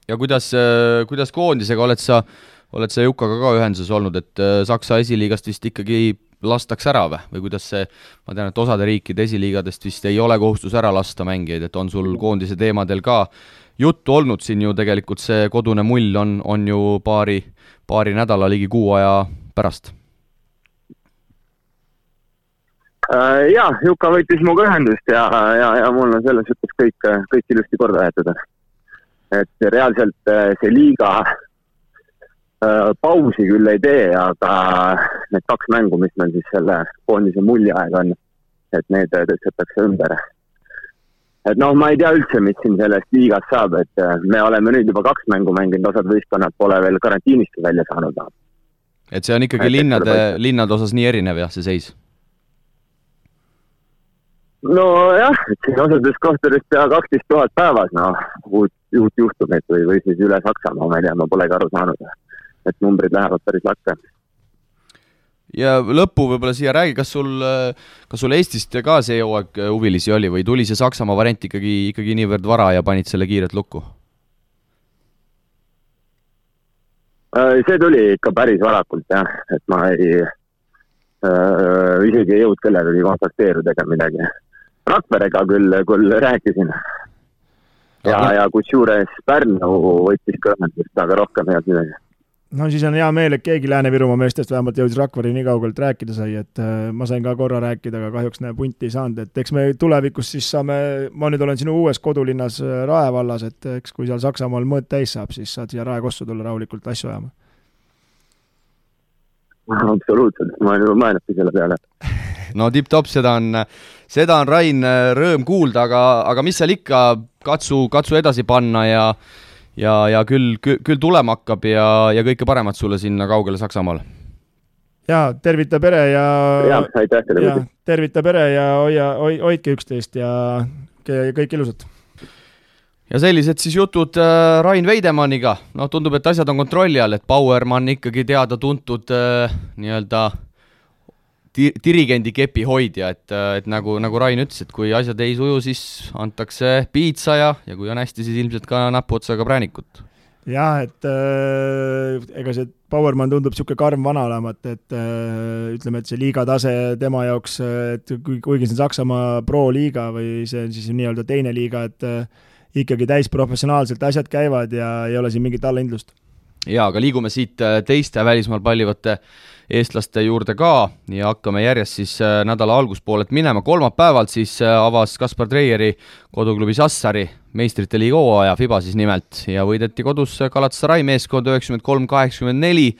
Ja kuidas koondisega oled sa Jukaga ka ühenduses olnud, et Saksa esiliigast vist ikkagi lastakse ära või kuidas see, ma tean, et osade riikide esiliigadest vist ei ole kohustus ära lasta mängijaid, et on sul koondise teemadel ka juttu olnud siin ju tegelikult see kodune mull on ju paari nädala ligi kuu aja pärast? Jaa, Juka võitis muga ühendust ja mul on selles suhtes kõik ilusti korda jäetud. Et reaalselt see liiga pausi küll ei tee, aga need 2 mängu, mis meil siis selle koondise mulli aeg on, et need tõstetakse ümber. et noh, ma ei tea üldse, mis siin sellest liigast saab, et me oleme nüüd juba 2 mängu mänginud, osad võistkonnad pole veel karantiinist välja saanud. Et see on ikkagi linnade osas nii erinev jah, see seis? No jah, et siin osades kohtades pea 12 000 päevas, uut juhtumit või siis üle Saksamaa, ma ei tea, ma polegi aru saanud, et numbrid lähevad päris lakke. Ja lõppu võib-olla siia räägi, kas sul Eestist ka see hooaeg huvilisi oli või tuli see Saksamaa variant ikkagi niivõrd vara ja panid selle kiiret lukku? See tuli ikka päris varakult jah, et ma isegi ei jõud kellegagi kontakteeruda ega midagi. Rakverega küll rääkisin ja kusjuures Pärnu võttis kõrnendust, aga rohkem ei olnud midagi. No siis on hea meel, et keegi Lääne-Virumaa meestest vähemalt jõudis Rakveri nii kaugelt rääkida sai, et ma sain ka korra rääkida, aga kahjuks punti ei saanud, et eks me tulevikus siis saame, ma nüüd olen sinu uues kodulinnas Rae vallas, et eks kui seal Saksamaal mõõt täis saab, siis saad siia Rae Kossu tulla rahulikult asju ajama. Absoluutselt, ma olen juba mõelnudki selle peale. No tipp-top, seda on Rain rõõm kuulda, aga mis seal ikka, katsu edasi panna ja küll tulema hakkab ja kõike paremat sulle sinna kaugele Saksamaale. Ja tervita pere ja tervita pere ja hoidke üksteist ja kõik ilusat. Ja sellised siis jutud Rain Veidemanniga. No tundub, et asjad on kontrolli all, et Bauermann ikkagi teada-tuntud nii-öelda dirigendi kepi hoidja, et nagu Rain ütles, et kui asjad ei suju, siis antakse piitsa ja kui on hästi, siis ilmselt ka näpuotsaga präänikut. Jah, et ega see Bauermann tundub siuke karm vana olemat, et ütleme, et see liiga tase tema jaoks, et kuigi see on Saksamaa pro-liiga või see on siis nii-öelda teine liiga, et ikkagi täis professionaalselt asjad käivad ja ei ole siin mingit allahindlust. Ja, aga liigume siit teiste välismaal pallivate eestlaste juurde ka ja hakkame järjest siis nädala alguspoolelt minema. Kolmapäevalt siis avas Kaspar Treieri koduklubi Sassari meistrite liiga hooaja, FIBA siis nimelt, ja võideti kodus Galatasaray meeskond 93-84,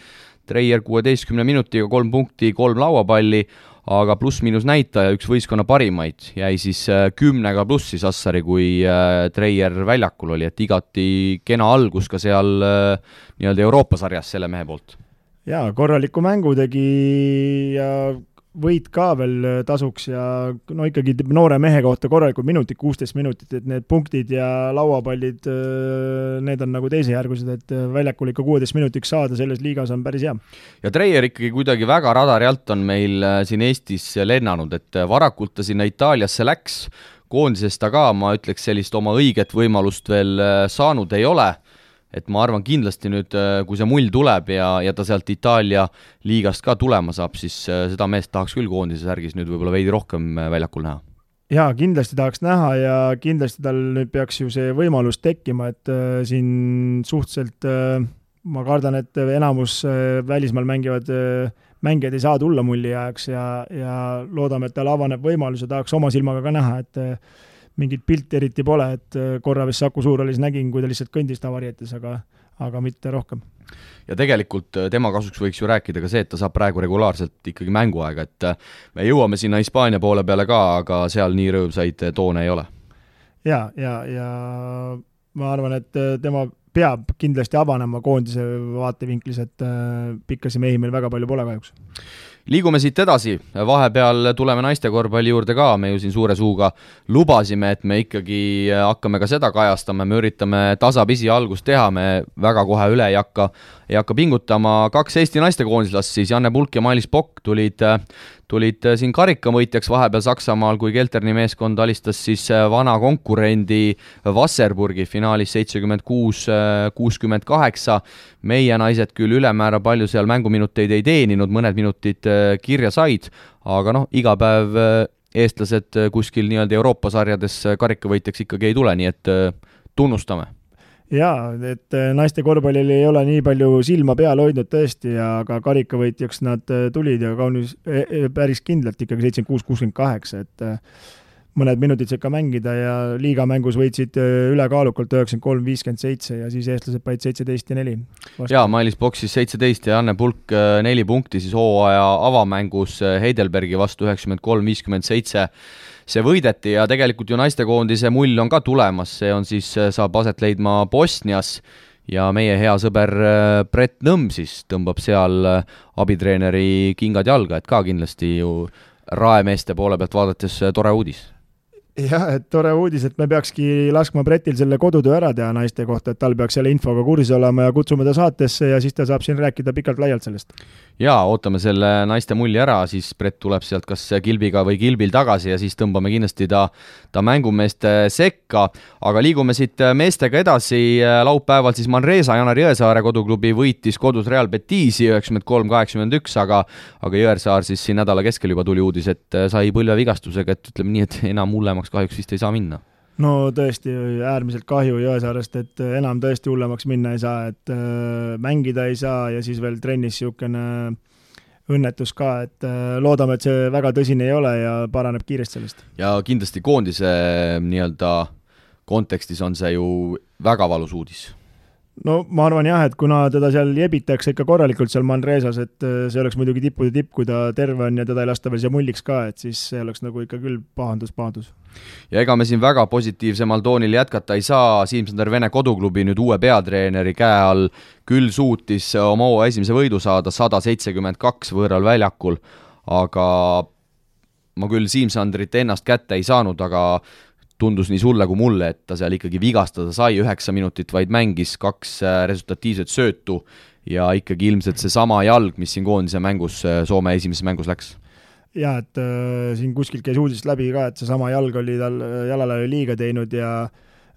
Treier 16 minutiga 3 punkti, 3 lauapalli, aga pluss-miinus näitaja üks võistkonna parimaid jäi siis 10 plussi Sassari, kui Treier väljakul oli, et igati kena algus ka seal nii-öelda Euroopa sarjas selle mehe poolt. Jaa, korraliku mängu tegi ja võit ka veel tasuks ja no ikkagi noore mehe kohta korralikud minutid, 16 minutit, et need punktid ja lauapallid, need on nagu teisejärgused, et väljakul ikka 16 minutiks saada selles liigas on päris hea. Ja Treier ikkagi kuidagi väga radari alt on meil siin Eestis lennanud, et varakult ta sinna Itaaliasse läks, koondisest ta ka, ma ütleks sellist oma õiget võimalust veel saanud ei ole. Et ma arvan kindlasti nüüd, kui see mull tuleb ja ta sealt Itaalia liigast ka tulema saab, siis seda meest tahaks küll koondise särgis nüüd võib-olla veidi rohkem väljakul näha. Jaa, kindlasti tahaks näha ja kindlasti tal nüüd peaks ju see võimalus tekkima, et siin suhteliselt ma kardan, et enamus välismaal mängijad ei saa tulla mulli ajaks ja loodame, et tal avaneb võimalus ja tahaks oma silmaga ka näha, et mingit pilti eriti pole, et korra vist Saku Suurhallis nägin, kui ta lihtsalt kõndis tavarietes, aga mitte rohkem. Ja tegelikult tema kasuks võiks ju rääkida ka see, et ta saab praegu regulaarselt ikkagi mänguaega, et me jõuame sinna Hispaania poole peale ka, aga seal nii rõõmsaid toone ei ole. Ja ma arvan, et tema peab kindlasti avanema koondise vaatevinklis, et pikkasi mehi meil väga palju pole kahjuks. Liigume siit edasi, vahepeal tuleme naiste korvpalli juurde ka, me ju siin suure suuga lubasime, et me ikkagi hakkame ka seda kajastama, me üritame tasapisi algust teha, me väga kohe üle ei hakka pingutama. 2 Eesti naistekoondislast siis, Janne Pulk ja Mailis Pokk tulid siin karikamõitjaks vahepeal Saksamaal, kui Kelterni meeskond alistas siis vana konkurendi Wasserburgi finaalis 76-68. Meie naised küll ülemäära palju seal mänguminuteid ei teeninud, mõned minutid kirja said, aga iga päev eestlased kuskil nii-öelda Euroopa sarjades karikavõitjaks ikkagi ei tule, nii et tunnustame. Jaa, et naiste korvpallil ei ole nii palju silma peal hoidnud tõesti, aga karikavõitjaks nad tulid ja kaunis päris kindlalt ikkagi 76-68, et mõned minutid sekka mängida ja liigamängus võitsid ülekaalukalt 93-57 ja siis eestlased paid 17-4. Jaa, Mailis Pokk siis 17 ja Janne Pulk 4 punkti siis hooaja avamängus Heidelbergi vastu 93-57. see võideti ja tegelikult ju naistekoondise mull on ka tulemas, see on siis, saab aset leidma Bosnias ja meie hea sõber Brett Nõmm siis tõmbab seal abitreeneri kingad jalga, et ka kindlasti ju raemeeste poole pealt vaadates tore uudis. Jah, et tore uudis, et me peakski laskma Brettil selle kodutöö ära teha naiste kohta, et tal peaks selle infoga kursis olema ja kutsume ta saatesse ja siis ta saab siin rääkida pikalt laialt sellest. Jaa, ootame selle naiste mulli ära, siis Brett tuleb sealt kas kilbiga või kilbil tagasi ja siis tõmbame kindlasti ta mängumeeste sekka, aga liigume siit meestega edasi. Laupäeval siis Manresa Janar Jõesaare koduklubi võitis kodus Real Betisi 93-81, aga Jõesaar siis siin nädala keskel juba tuli uudis, et sai põlvevigastusega, et ütleme nii, et enam hullemaks kahjuks vist ei saa minna. No tõesti äärmiselt kahju Jõesaarest, et enam tõesti hullemaks minna ei saa, et mängida ei saa ja siis veel trennis siukene õnnetus ka, et loodame, et see väga tõsine ei ole ja paraneb kiiresti sellest. Ja kindlasti koondise nii-öelda kontekstis on see ju väga valus uudis. No ma arvan jah, et kuna teda seal jebitakse ikka korralikult seal Manresas, et see oleks muidugi tippude tipp, kui ta terve on ja teda ei lasta veel siia mulliks ka, et siis see oleks nagu ikka küll pahandus. Ja ega me siin väga positiivsemal toonil jätkata ei saa, Siim-Sander Vene koduklubi nüüd uue peatreeneri käe all küll suutis oma esimese võidu saada 172 võõral väljakul, aga ma küll Siim-Sandrit ennast kätte ei saanud, aga tundus nii sulle kui mulle, et ta seal ikkagi vigastada sai, 9 minutit vaid mängis, 2 resultatiivset söötu ja ikkagi ilmselt see sama jalg, mis siin koondise mängus, Soome esimeses mängus läks. Ja, et siin kuskilt käis uudist läbi ka, et see sama jalg oli tal jalale liiga teinud ja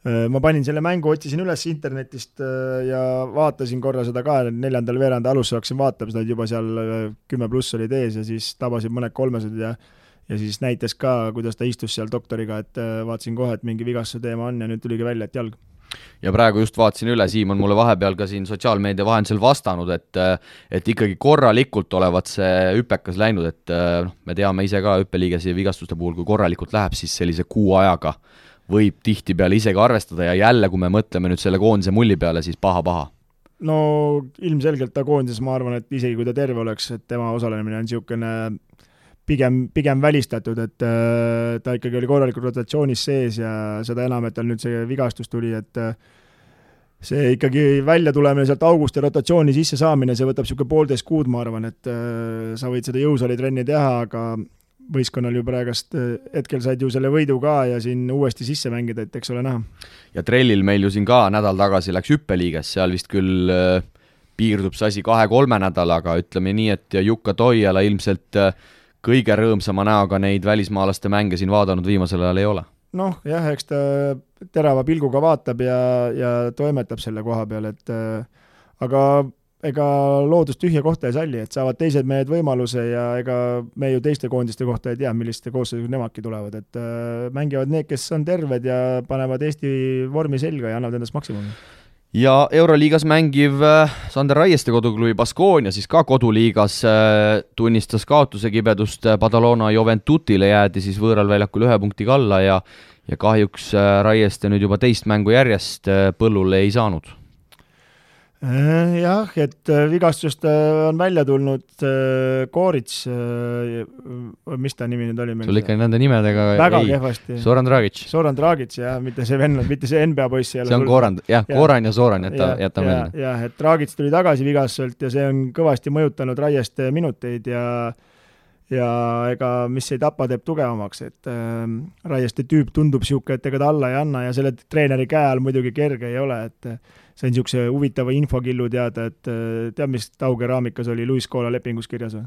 ma panin selle mängu, otsisin üles internetist ja vaatasin korra seda ka, 4. veeranda alusse hakkasin vaatama, seda juba seal 10+ olid ees ja siis tabasid mõned 300 ja siis näitas ka, kuidas ta istus seal doktoriga, et vaatasin kohe, et mingi vigastuse teema on ja nüüd tuligi välja, et jalg. Ja praegu just vaatasin üle, Siim on mulle vahepeal ka siin sotsiaalmeedia vahendusel vastanud, et ikkagi korralikult olevat see hüpekas läinud, et me teame ise ka hüppeliigese vigastuste puhul, kui korralikult läheb, siis sellise kuu ajaga võib tihti peale isegi arvestada ja jälle, kui me mõtleme nüüd selle koondise mulli peale, siis paha. No ilmselgelt ta koondises, ma arvan, et isegi kui ta terve oleks, et tema osalemine on niisugune pigem välistatud, et ta ikkagi oli korralikult rotatsioonis sees ja seda enam, et tal nüüd see vigastus tuli, et see ikkagi välja tulemine sealt august ja rotatsiooni sisse saamine, see võtab niisugune 1,5 kuud, ma arvan, et sa võid seda jõusaalitrenni teha, aga võistkonnal ju praegast hetkel said ju selle võidu ka ja siin uuesti sisse mängida, et eks ole näha. Ja Trellil meil ju siin ka nädal tagasi läks hüppeliiges, seal vist küll piirdub see asi 2-3 nädalaga, ütleme nii, et Jukka Toijala ilmselt kõige rõõmsama näoga neid välismaalaste mänge siin vaadanud viimasel ajal ei ole. Noh, jah, eks ta terava pilguga vaatab ja toimetab selle koha peal, et aga ega loodus tühja kohta ei salli, et saavad teised mehed võimaluse ja ega me ju teiste koondiste kohta ei tea, milliste koosseisud nemadki tulevad, et mängivad need, kes on terved ja panevad Eesti vormi selga ja annavad endast maksimumi. Ja Euroliigas mängiv Sander Raieste koduklubi Baskonia siis ka koduliigas tunnistas kaotuse kibedust Badalona Juventutile, jäädi siis võõral väljakul 1 punktiga alla ja kahjuks Raieste nüüd juba teist mängu järjest põllule ei saanud. Jah, et vigastusest on välja tulnud Koorits, mis ta nimi nüüd oli meil? Sul ikka nende nimedega väga kehvasti. Zoran Dragic, jah, mitte see venn, mitte see NBA poiss. See on Koran ja Zoran, jätta meelde. Jah, et Dragic tuli tagasi vigastuselt ja see on kõvasti mõjutanud Raieste minuteid ja ega mis ei tapa, teeb tugevamaks, et Raieste tüüp tundub siuke, et ega ta alla ei anna ja selle treeneri käe all muidugi kerge ei ole, et see on niisuguse huvitava infokillu teada, et tead, mis Taugeraamikas oli Luis Koola lepingus kirjas või?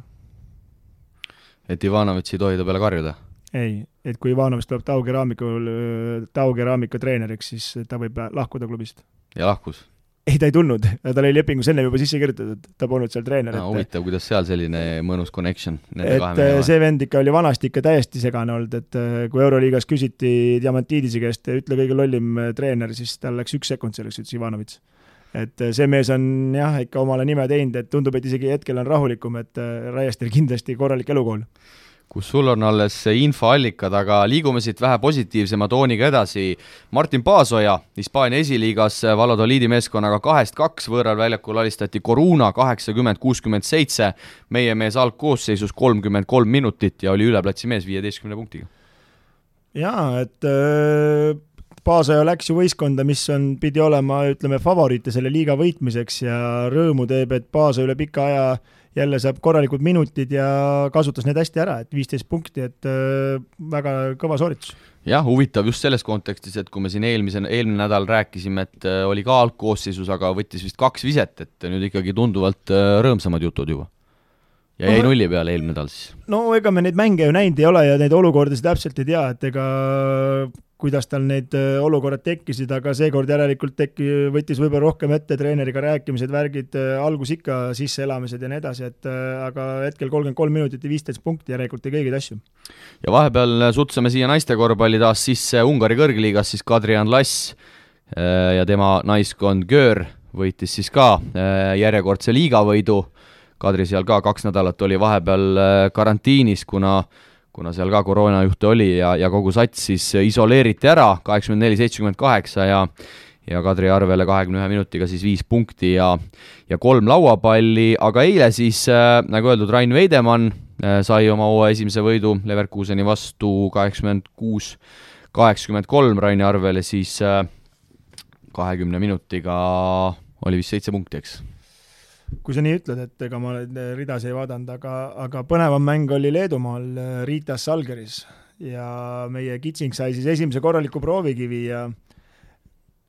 Et Ivanovitš ei tohi ta peale karjuda? Ei, et kui Ivanovitš tuleb Taugeraamika treeneriks, siis ta võib lahkuda klubist. Ja lahkus? Ei, ta ei tulnud, ta oli lepingus enne juba sisse kirjutatud, ta polnud seal treener. Huvitav, kuidas seal selline mõnus connection nende kahe mehe. See vend ikka oli vanasti ikka täiesti segane olnud, et kui Euroliigas küsiti Diamantidise käest, ütle kõige lollim treener, siis tal läks 1 sekund selleks, ütles Ivanovitš. Et see mees on jah, ikka omale nime teinud, et tundub, et isegi hetkel on rahulikum, et Raiestel kindlasti korralik elukool. Kus sul on alles infoallikad, aga liigume siit vähe positiivsema tooniga edasi. Martin Paasoja, Hispaania esiliigas Valladoliidi meeskonnaga 2-2 võõral väljakul alistati Coruna 80-67, meie mees algkoosseisus 33 minutit ja oli üleplatsi mees 15 punktiga. Jaa, et Paasoja läks ju võistkonda, mis pidi olema, ütleme, favoriite selle liiga võitmiseks ja rõõmu teeb, et Paasoja üle pika aja jälle saab korralikud minutid ja kasutas need hästi ära, et 15 punkti, et väga kõva sooritus. Jah, huvitav just selles kontekstis, et kui me siin eelmine nädal rääkisime, et oli ka algkoosseisus, aga võttis vist 2 viset, et nüüd ikkagi tunduvalt rõõmsamad jutud juba. Ja jäi nulli peale eelmine nädal siis. No ega me neid mänge ju näinud ei ole ja neid olukordasid täpselt ei tea, et ega kuidas tal need olukorrad tekkisid, aga seekord järelikult võttis võib-olla rohkem ette treeneriga rääkimised, värgid, algus ikka sisseelamised ja nii edasi, et aga hetkel 33 minutit ja 15 punkti järelikult ei kõigid asju. Ja vahepeal sutsame siia naiste korvpalli taas sisse Ungari kõrgliigas siis Kadrian Lass ja tema naiskond Göör võitis siis ka järjekordse liigavõidu. Kadri seal ka 2 nädalat oli vahepeal karantiinis, kuna seal ka koroonajuhte oli ja kogu sats siis isoleeriti ära 84-78 ja Kadri arvele 21 minutiga siis 5 punkti ja 3 lauapalli, aga eile siis, nagu öeldud, Rain Veidemann sai oma uue esimese võidu Leverkuseni vastu 86-83 Raini arvele, siis 20 minutiga oli vist 7 punkti, eks? Kui sa nii ütled, et ega ma ridas ei vaadanud, aga põnevam mäng oli Leedumaal Ritas Žalgiris ja meie Kitsing sai siis esimese korraliku proovikivi ja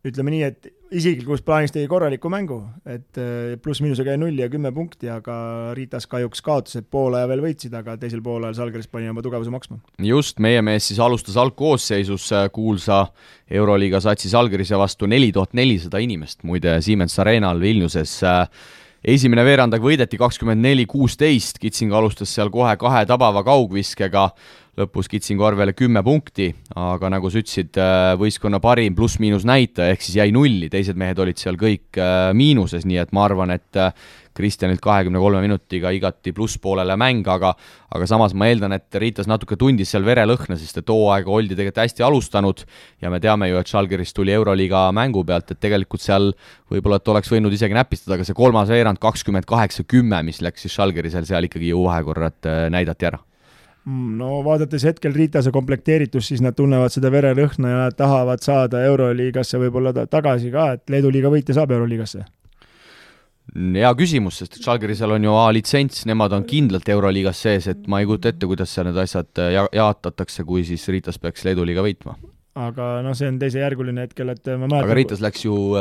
ütleme nii, et isiklikus plaanis tegi korraliku mängu, et pluss-miinusega jäi 0 ja 10 punkti, aga Ritas kahjuks kaotas, et poole ja veel võitsid, aga teisel poolel Žalgiris pani oma tugevuse maksma. Just, meie mees siis alustas algkoosseisus kuulsa Euroliiga satsi Žalgirise vastu 4400 inimest, muide Siemens Arenal Vilniuses. Esimene veerandag võideti 24-16, Kitsing alustas seal kohe 2 tabava kaugviskega, lõpus Kitsingu arvele 10 punkti, aga nagu sa ütlesid, võistkonna parim pluss-miinus näitaja, ehk siis jäi 0, teised mehed olid seal kõik miinuses, nii et ma arvan, et Kristjanilt 23 minutiga igati plusspoolele mäng, aga samas ma eeldan, et Ritas natuke tundis seal verelõhna, sest et hooaega oldi tegelikult hästi alustanud ja me teame ju, et Žalgiris tuli Euroliiga mängu pealt, et tegelikult seal võib-olla, et oleks võinud isegi näpistada, aga see 3. veerand 28-10, mis läks siis Žalgirisel seal ikkagi ju vahekorrad näidati ära. No vaadates hetkel Riitase komplekteeritus, siis nad tunnevad seda verelõhna ja nad tahavad saada Euroliigasse võib-olla tagasi ka, et Leedu liiga võitja saab Euroliigasse. Hea küsimus, sest Žalgirisel on ju A-litsents, nemad on kindlalt Euroliigas sees, et ma ei kujuta ette, kuidas seal need asjad jaatatakse, kui siis Ritas peaks Leedu liiga võitma. Aga see on teisejärguline hetkel, et ma mäletan... Aga Ritas läks ju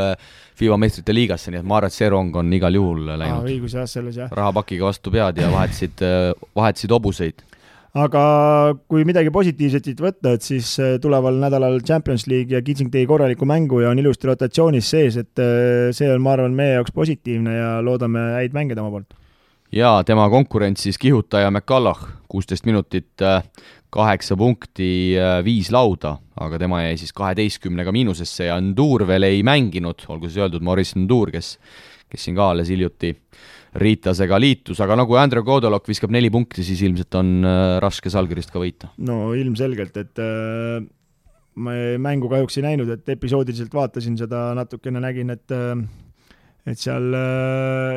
FIBA meistrite liigasse, nii et ma arvan, et see rong on igal juhul läinud. Õigus jah, selles jah. Rahapakiga vastu pead ja vahetasid hobuseid. Aga kui midagi positiivset võtta, et siis tuleval nädalal Champions League ja Kitsing tegi korraliku mängu ja on ilusti rotatsioonis sees, et see on, ma arvan, meie jaoks positiivne ja loodame häid mänge tema poolt. Ja tema konkurents siis kihutaja McCulloch, 16 minutit, 8 punkti, 5 lauda, aga tema jäi siis 12-ga miinusesse ja Ndur veel ei mänginud, olgu siis öeldud Maurice Ndur, kes siin ka alles hiljuti Riitasega liitus, aga nagu Andrew Kodolok viskab 4 punkti, siis ilmselt on raske Žalgirist ka võita. No ilmselgelt, et ma mängu kahjuks ei näinud, et episoodiliselt vaatasin seda natukene, nägin, et seal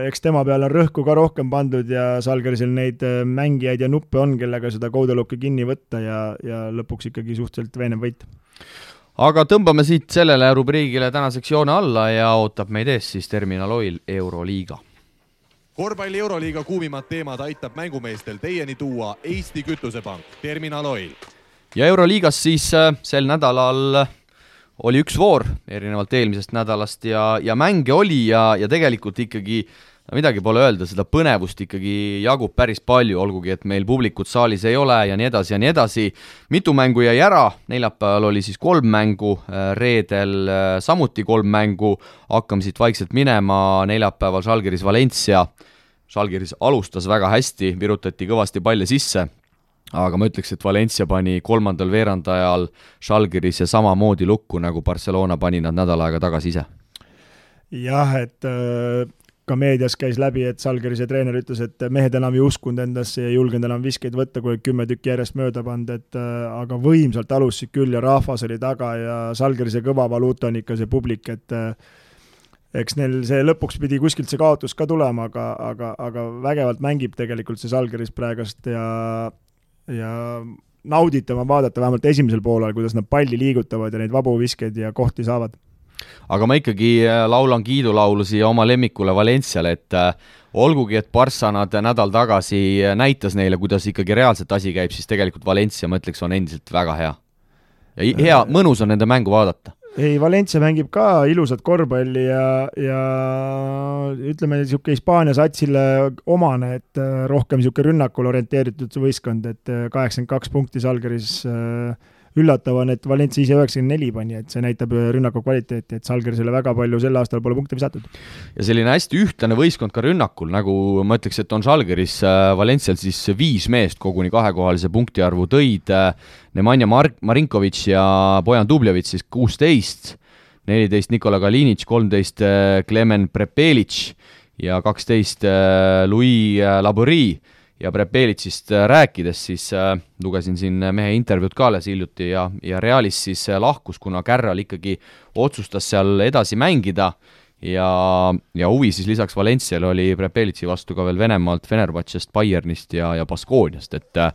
eks tema peale on rõhku ka rohkem pandud ja Žalgirisel neid mängijaid ja nuppe on, kellega seda Kodolokki kinni võtta ja lõpuks ikkagi suhteliselt veenev võit. Aga tõmbame siit sellele rubriigile tänaseks joone alla ja ootab meid ees siis Terminal Oil Euroliiga. Korvpalli Euroliiga kuumimad teemad aitab mängumeestel teieni tuua Eesti Kütusepank, Terminal Oil. Ja Euroliigas siis sel nädalal oli üks voor erinevalt eelmisest nädalast ja mänge oli ja tegelikult ikkagi midagi pole öelda, seda põnevust ikkagi jagub päris palju, olgugi et meil publikut saalis ei ole ja nii edasi ja nii edasi. Mitu mängu jäi ära, neljapäeval oli siis 3 mängu, reedel samuti 3 mängu, hakkame siit vaikselt minema, neljapäeval Žalgiris Valencia. Žalgiris alustas väga hästi, virutati kõvasti palle sisse, aga ma ütleks, et Valencia pani 3. veerandajal Žalgiris ja samamoodi lukku, nagu Barcelona pani nad nädal aega tagasi ise. Jah, et ka meedias käis läbi, et Žalgirise treener ütles, et mehed enam ei uskunud endasse ja julgenud enam viskeid võtta, kui 10 tükki järjest mööda pand, aga võimsalt alusid küll ja rahvas oli taga ja Žalgirise kõva valuuta on ikka see publik, et eks neil see lõpuks pidi kuskilt see kaotus ka tulema, aga vägevalt mängib tegelikult see Žalgiris praegast ja nauditama vaadata vähemalt esimesel poolel, kuidas nad palli liigutavad ja neid vabu viskeid ja kohti saavad. Aga ma ikkagi laulan kiidulaulu siia oma lemmikule Valenciale, et olgugi, et Barca nad nädal tagasi näitas neile, kuidas ikkagi reaalselt asi käib, siis tegelikult Valencia, ma ütleks, on endiselt väga hea. Ja hea, mõnus on nende mängu vaadata. Ei, Valencia mängib ka ilusat korvpalli ja ütleme, niisugune Hispaania satsile omane, et rohkem niisugune rünnakul orienteeritud võistkond, et 82 punkti Salgeris üllatav on, et Valencia ise 94 pani, et see näitab rünnaku kvaliteeti, et Salgerisele väga palju sel aastal pole punkte visatud. Ja selline hästi ühtlane võistkond ka rünnakul, nagu ma ütleks, et on Salgeris Valencial siis 5 meest koguni kahekohalise punktiarvu tõid, Nemanja Marinkovic ja Bojan Dubljevic siis 16, 14 Nikola Kalinic, 13 Klemen Prepelic ja 12 Louis Labori. Ja Prepelitsist rääkides, siis lugesin siin mehe intervjuud ka alles hiljuti ja Realis siis lahkus, kuna Kärral ikkagi otsustas seal edasi mängida ja huvi siis lisaks Valenciale oli Prepelitsi vastu ka veel Venemaalt, Fenerbahcest, Bayernist ja Baskooniast, et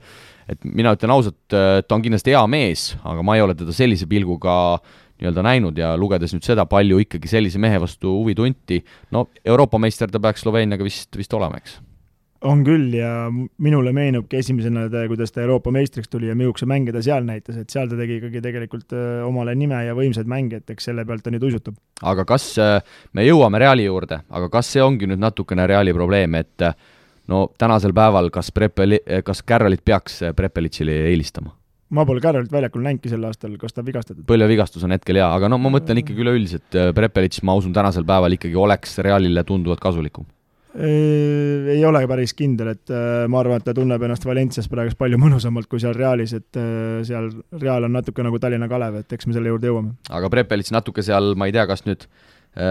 mina ütlen ausalt, ta on kindlasti hea mees, aga ma ei ole teda sellise pilguga nii-öelda näinud ja lugedes nüüd seda palju ikkagi sellise mehe vastu huvi tunti, no Euroopa meister ta peaks Sloveeniaga vist olema, eks? On küll ja minule meenubki esimesena, kuidas ta Euroopa meistriks tuli ja mihukese mänge ta seal näitas, et seal ta tegi ikkagi tegelikult omale nime ja võimsad mänge, et eks selle pealt ta nüüd uisutab. Aga kas me jõuame Reali juurde, aga kas see ongi nüüd natukene Reali probleem, et no tänasel päeval kas Kärralit peaks Prepelitsile eelistama? Ma pole Kärralit väljakul näinki sel aastal, kas ta vigastatud? Põlvevigastus on hetkel hea, aga no ma mõtlen ikkagi üleüldiselt, Prepelits, ma usun, tänasel päeval ikkagi oleks Realile tunduvalt kasulikum. Ei ole päris kindel, et ma arvan, et ta tunneb ennast Valencias praegu palju mõnusamalt kui seal Realis, et seal Real on natuke nagu Tallinna Kalev, et eks me selle juurde jõuame. Aga Prepelits natuke seal, ma ei tea, kas nüüd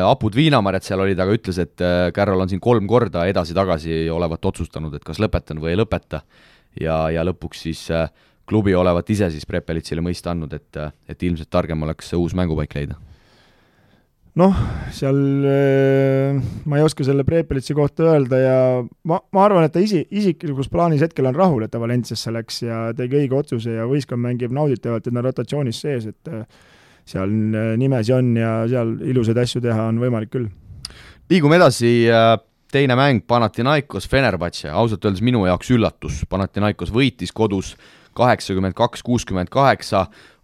Apud Viinamarjad seal olid, aga ütles, et Kärral on siin 3 korda edasi-tagasi olevat otsustanud, et kas lõpetan või ei lõpeta ja lõpuks siis klubi olevat ise siis Prepelitsile mõista andnud, et ilmselt targem oleks uus mängupaik leida. Noh, seal ma ei oska selle Prepelitsi kohta öelda ja ma arvan, et ta isiklikus plaanis hetkel on rahul, et ta Valenciasse läks ja tegi õige otsuse ja võistkond mängib nauditavalt, et nad rotatsioonis sees, et seal nimesi on ja seal ilusaid asju teha on võimalik küll. Liigume edasi, teine mäng Panathinaikos Fenerbahce, ausalt öeldes minu jaoks üllatus. Panathinaikos võitis kodus 82-68,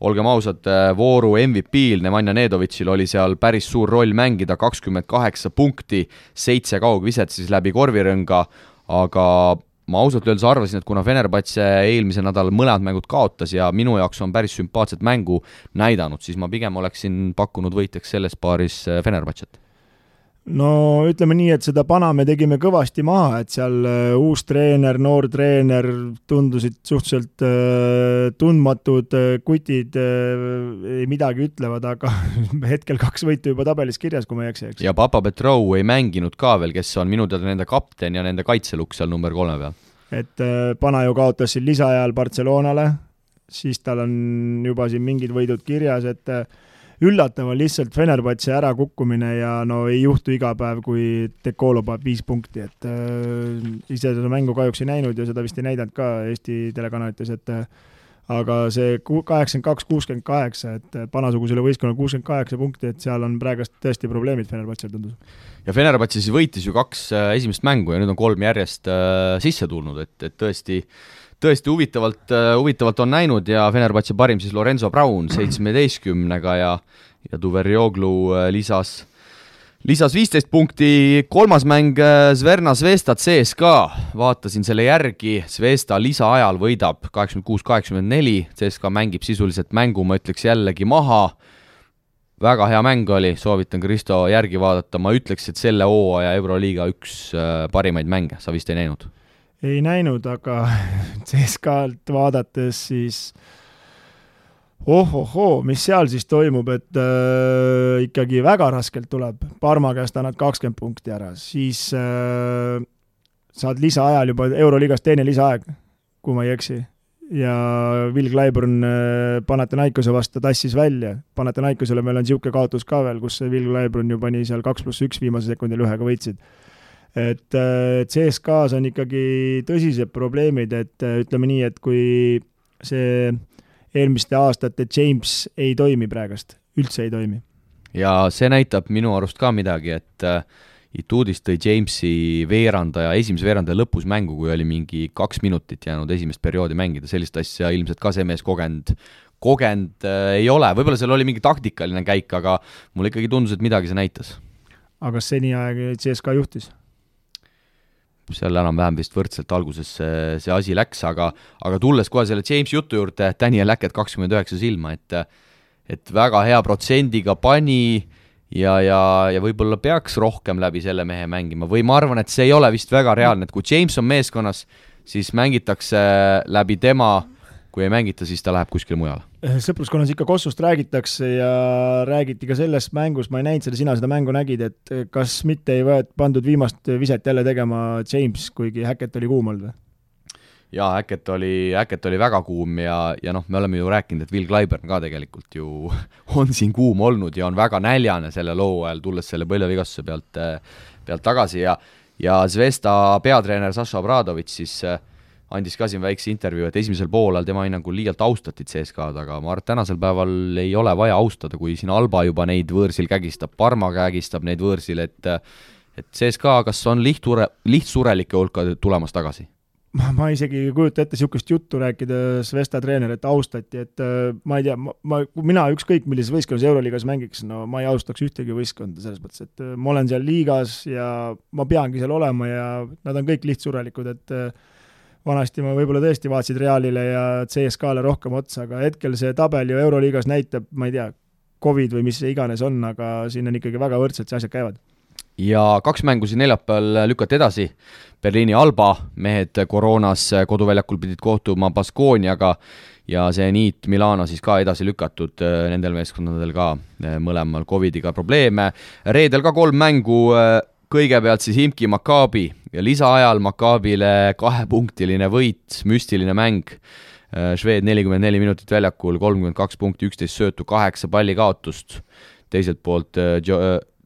olgem ausad, vooru MVP-l Nemanja Nedovitšil oli seal päris suur roll mängida, 28 punkti, 7 kaugviset siis läbi korvirõnga, aga ma ausalt öeldes arvasin, et kuna Fenerbahce eelmise nädal mõlemad mängud kaotas ja minu jaoks on päris sümpaatset mängu näidanud, siis ma pigem oleksin pakkunud võitjaks selles paaris Fenerbahcet. No ütleme nii, et seda pana me tegime kõvasti maha, et seal uus treener, noor treener tundusid suhteliselt tundmatud kutid ei midagi ütlevad, aga hetkel 2 võitu juba tabelis kirjas, kui ma ei eksi. Ja Papa Petrov ei mänginud ka veel, kes on minu teada nende kapten ja nende kaitselukk seal number 3 peal. Et pana ju kaotas siin lisaajal Barcelonale, siis tal on juba siin mingid võidud kirjas, et üllatav on lihtsalt Fenerbahce ära kukkumine ja no ei juhtu iga päev, kui Dekolo paneb 5 punkti, et ise seda mängu kahjuks ei näinud ja seda vist ei näidanud ka Eesti telekanalites, et aga see 82-68, et panasugusele võistkonnal 68 punkti, et seal on praegust tõesti probleemid Fenerbahce tundus. Ja Fenerbahce siis võitis ju 2 esimest mängu ja nüüd on 3 järjest sisse tulnud, et tõesti huvitavalt on näinud ja Fenerbahce parim siis Lorenzo Brown 17-ga ja Duverjoglu lisas 15 punkti, 3. mäng Zverna Zvezda CSKA, vaatasin selle järgi, Zvezda lisaajal võidab 86-84, CSKA mängib sisuliselt mängu, ma ütleks jällegi maha, väga hea mäng oli, soovitan Kristo järgi vaadata, ma ütleks, et selle hooaja Euroliiga üks parimaid mänge, sa vist ei näinud? Ei näinud, aga CSKA-lt vaadates siis mis seal siis toimub, et ikkagi väga raskelt tuleb. Parma käest annad 20 punkti ära, siis saad lisaajal juba Euroliigas teine lisaaeg, kui ma ei eksi. Ja Will Clyburn Panathinaikose vastu tassis välja. Panathinaikosele meil on siuke kaotus ka veel, kus Will Clyburn ju pani seal 2+1 viimase sekundil 1 võitsid. Et CSKA-s on ikkagi tõsised probleemid, et ütleme nii, et kui see eelmiste aastate James ei toimi praegast, üldse ei toimi. Ja see näitab minu arust ka midagi, et Ituudis tõi Jamesi esimese veerandaja lõpus mängu, kui oli mingi 2 minutit jäänud esimest perioodi mängida, sellist asja ilmselt ka see mees kogenud ei ole, võib-olla seal oli mingi taktikaline käik, aga mulle ikkagi tundus, et midagi see näitas. Aga seni aeg CSKA juhtis? Seal enam-vähem vist võrdselt alguses see asi läks, aga tulles kohe selle James jutu juurde, Daniel Hackett 29 silma, et väga hea protsendiga pani ja võib-olla peaks rohkem läbi selle mehe mängima või ma arvan, et see ei ole vist väga reaalne, et kui James on meeskonnas, siis mängitakse läbi tema, kui ei mängita, siis ta läheb kuskile mujale. Sõpruskonnas ikka Kossust räägitakse ja räägiti ka selles mängus, ma ei näinud sina seda mängu nägid, et kas mitte ei pandud viimast viset jälle tegema James, kuigi Hackett oli kuum olnud või? Jaa, Hackett oli väga kuum ja me oleme ju rääkinud, et Will Clyburn ka tegelikult ju on siin kuum olnud ja on väga näljane selle loo ajal, tulles selle põlvevigastuse pealt tagasi ja Zvezda peatreener Saša Obradović siis andis ka siin väikse intervjuu, et esimesel poolel tema hinnangul liialt austatid CSKA-d, aga ma arvan, et tänasel päeval ei ole vaja austada, kui siin Alba juba neid võõrsil kägistab, Parma kägistab neid võõrsil, et CSKA kas on lihtsurelike hulka tulemas tagasi? Ma isegi ei kujuta ette sihukest juttu rääkida Zvezda treener, et austati, et ma ei tea, mina ükskõik millises võistkonnas Euroliigas mängiks, no ma ei austaks ühtegi võistkonda selles mõttes, et ma olen seal liigas ja ma peangi seal olema ja nad on kõik lihtsurelikud, et vanasti ma võib-olla tõesti vaatasid Realile ja CSKA-le rohkem otsa, aga hetkel see tabel ju Euroliigas näitab, ma ei tea, Covid või mis see iganes on, aga siin on ikkagi väga võrdselt see asjad käivad. Ja 2 mängu siin neljapäeval lükati edasi. Berliini Alba mehed koroonas koduväljakul pidid kohtuma Baskooniaga ja see Niit Milano siis ka edasi lükatud, nendel meeskondadel ka mõlemal Covidiga probleeme. Reedel ka 3 mängu, kõigepealt siis Himki Maccabi ja lisaajal Maccabile 2-punktiline võit, müstiline mäng. Šveed 44 minutit väljakul, 32 punkti, 11 söötu, 8 palli kaotust. Teiselt poolt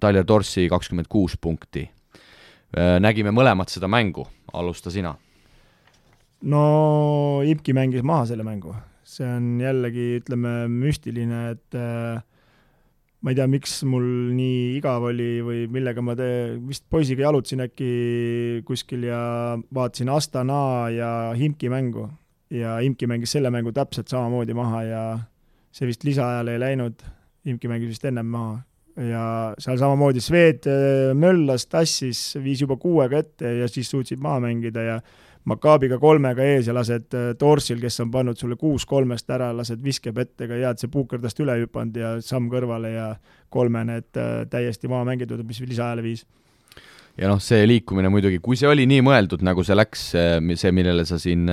Tyler Dorsey 26 punkti. Nägime mõlemat seda mängu, alusta sina. No Imki mängis maha selle mängu. See on jällegi, ütleme, müstiline, et ma ei tea, miks mul nii igav oli või millega ma vist poisiga jalutasin äkki kuskil ja vaatasin Astana ja Imki mängu. Ja Imki mängis selle mängu täpselt samamoodi maha ja see vist lisaajale ei läinud. Imki mängis vist ennem maha. Ja seal samamoodi Sved möllas, tassis, viis juba 6-ga ette ja siis suutsid maha mängida ja Maccabiga 3-ga ees ja lased Dorsil, kes on pannud sulle 6-3-st ära, lased viskeb ettega ja see puukerdast üle hüpanud ja samm kõrvale ja 3 need täiesti maha mängitud, mis lisaajale viis. Ja see liikumine muidugi, kui see oli nii mõeldud, nagu see läks, see millele sa siin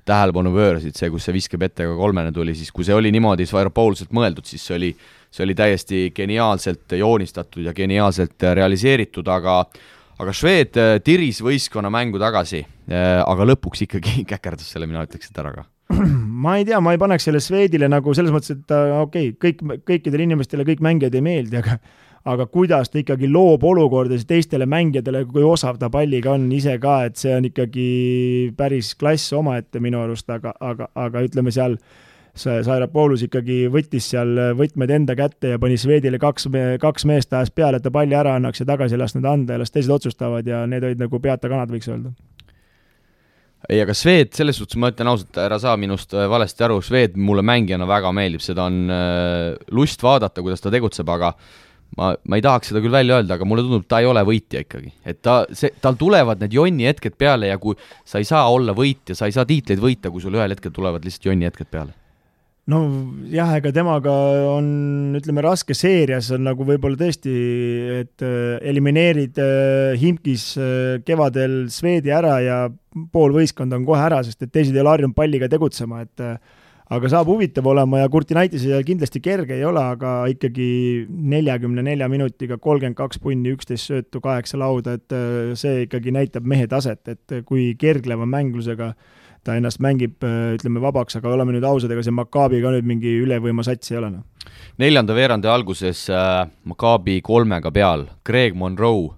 tähelepanu pöörasid, see, kus see viskeb ettega 3 tuli, siis kui see oli niimoodi Svairopoulselt mõeldud, siis see oli täiesti geniaalselt joonistatud ja geniaalselt realiseeritud, aga Šved tiris võistkonna mängu tagasi, aga lõpuks ikkagi käkerdas selle, mina ütleks, et ära ka. Ma ei tea, ma ei paneks selle Švedile nagu selles mõttes, et kõikidele inimestele kõik mängijad ei meeldi, aga kuidas ta ikkagi loob olukordas teistele mängijatele, kui osav ta palliga on ise ka, et see on ikkagi päris klass omaette minu arust, aga ütleme seal Svairopoulus ikkagi võttis seal võtmed enda kätte ja pani Švedile 2 meest ajas peale, et ta palli ära annaks ja tagasi lasknud anda ja las teised otsustavad ja need olid nagu peata kanad, võiks öelda. Ei, aga Šved, selles suhtes ma ütlen ausalt, ära saa minust valesti aru, Šved mulle mängijana väga meeldib, seda on lust vaadata, kuidas ta tegutseb, aga ma ei tahaks seda küll välja öelda, aga mulle tundub, ta ei ole võitja ikkagi. Et tal tulevad need jonni hetked peale ja kui sa ei saa olla võitja, sa ei saa tiitleid võita, kui sul ühel hetkel tulevad lihtsalt jonni hetked peale. No jah, ega temaga on, ütleme, raske seerias on nagu võib-olla tõesti, et elimineerid Himkis kevadel Švedi ära ja pool võistkond on kohe ära, sest et teised ei ole harjunud palliga tegutsema, et aga saab huvitav olema ja Kurtinaitis kindlasti kerge ei ole, aga ikkagi 44 minutiga 32 punni, 11 söötu, 8 lauda, et see ikkagi näitab mehe taset, et kui kergleva mänglusega ta ennast mängib, ütleme, vabaks, aga oleme nüüd ausad, ega see Maccabi ka nüüd mingi ülevõima sats ei ole. 4. veerandi alguses Maccabi 3-ga peal, Greg Monroe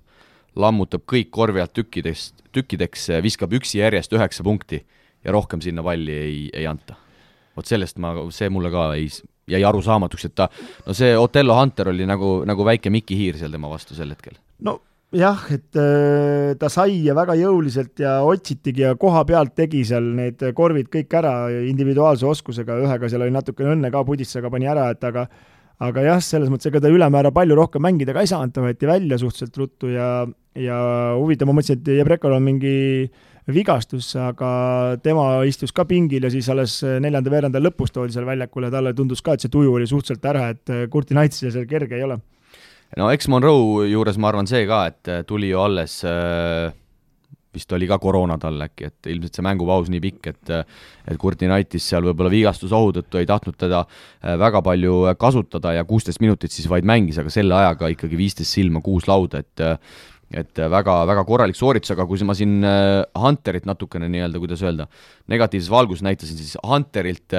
lammutab kõik korvi alt tükkideks, viskab üksi järjest 9 punkti ja rohkem sinna palli ei anta. vot sellest see mulle ka jäi arusaamatuks, et see Otello Hunter oli nagu väike Mikki Hiir seal tema vastu sel hetkel. No jah, et ta sai ja väga jõuliselt ja otsitigi ja koha pealt tegi seal need korvid kõik ära individuaalse oskusega, ühega seal oli natuke õnne ka, Puditsaga pani ära, et aga jah, selles mõttes, ega ta ülemäära palju rohkem mängida ka ei saanud, ta võeti välja suhteliselt ruttu ja huvitav, ma mõtlesin, et Jebrekal on mingi vigastus, aga tema istus ka pingil ja siis alles 4. veerandal lõpus toodi seal väljakule, talle tundus ka, et see tuju oli suhteliselt ära, et Kurti Naitsil seal kerge ei ole. No eks Monroe juures ma arvan see ka, et tuli ju alles vist oli ka koroona tal äkki, et ilmselt see mängupaus nii pikk, et Kurti Naitis seal võib-olla vigastusohu tõttu ei tahtnud teda väga palju kasutada ja 16 minutit siis vaid mängis, aga selle ajaga ikkagi 15 silma 6 lauda, et väga korralik sooritus, aga kui ma siin Hunterit natukene nii-öelda, kuidas öelda, negatiivses valgus näitasin, siis Hunterilt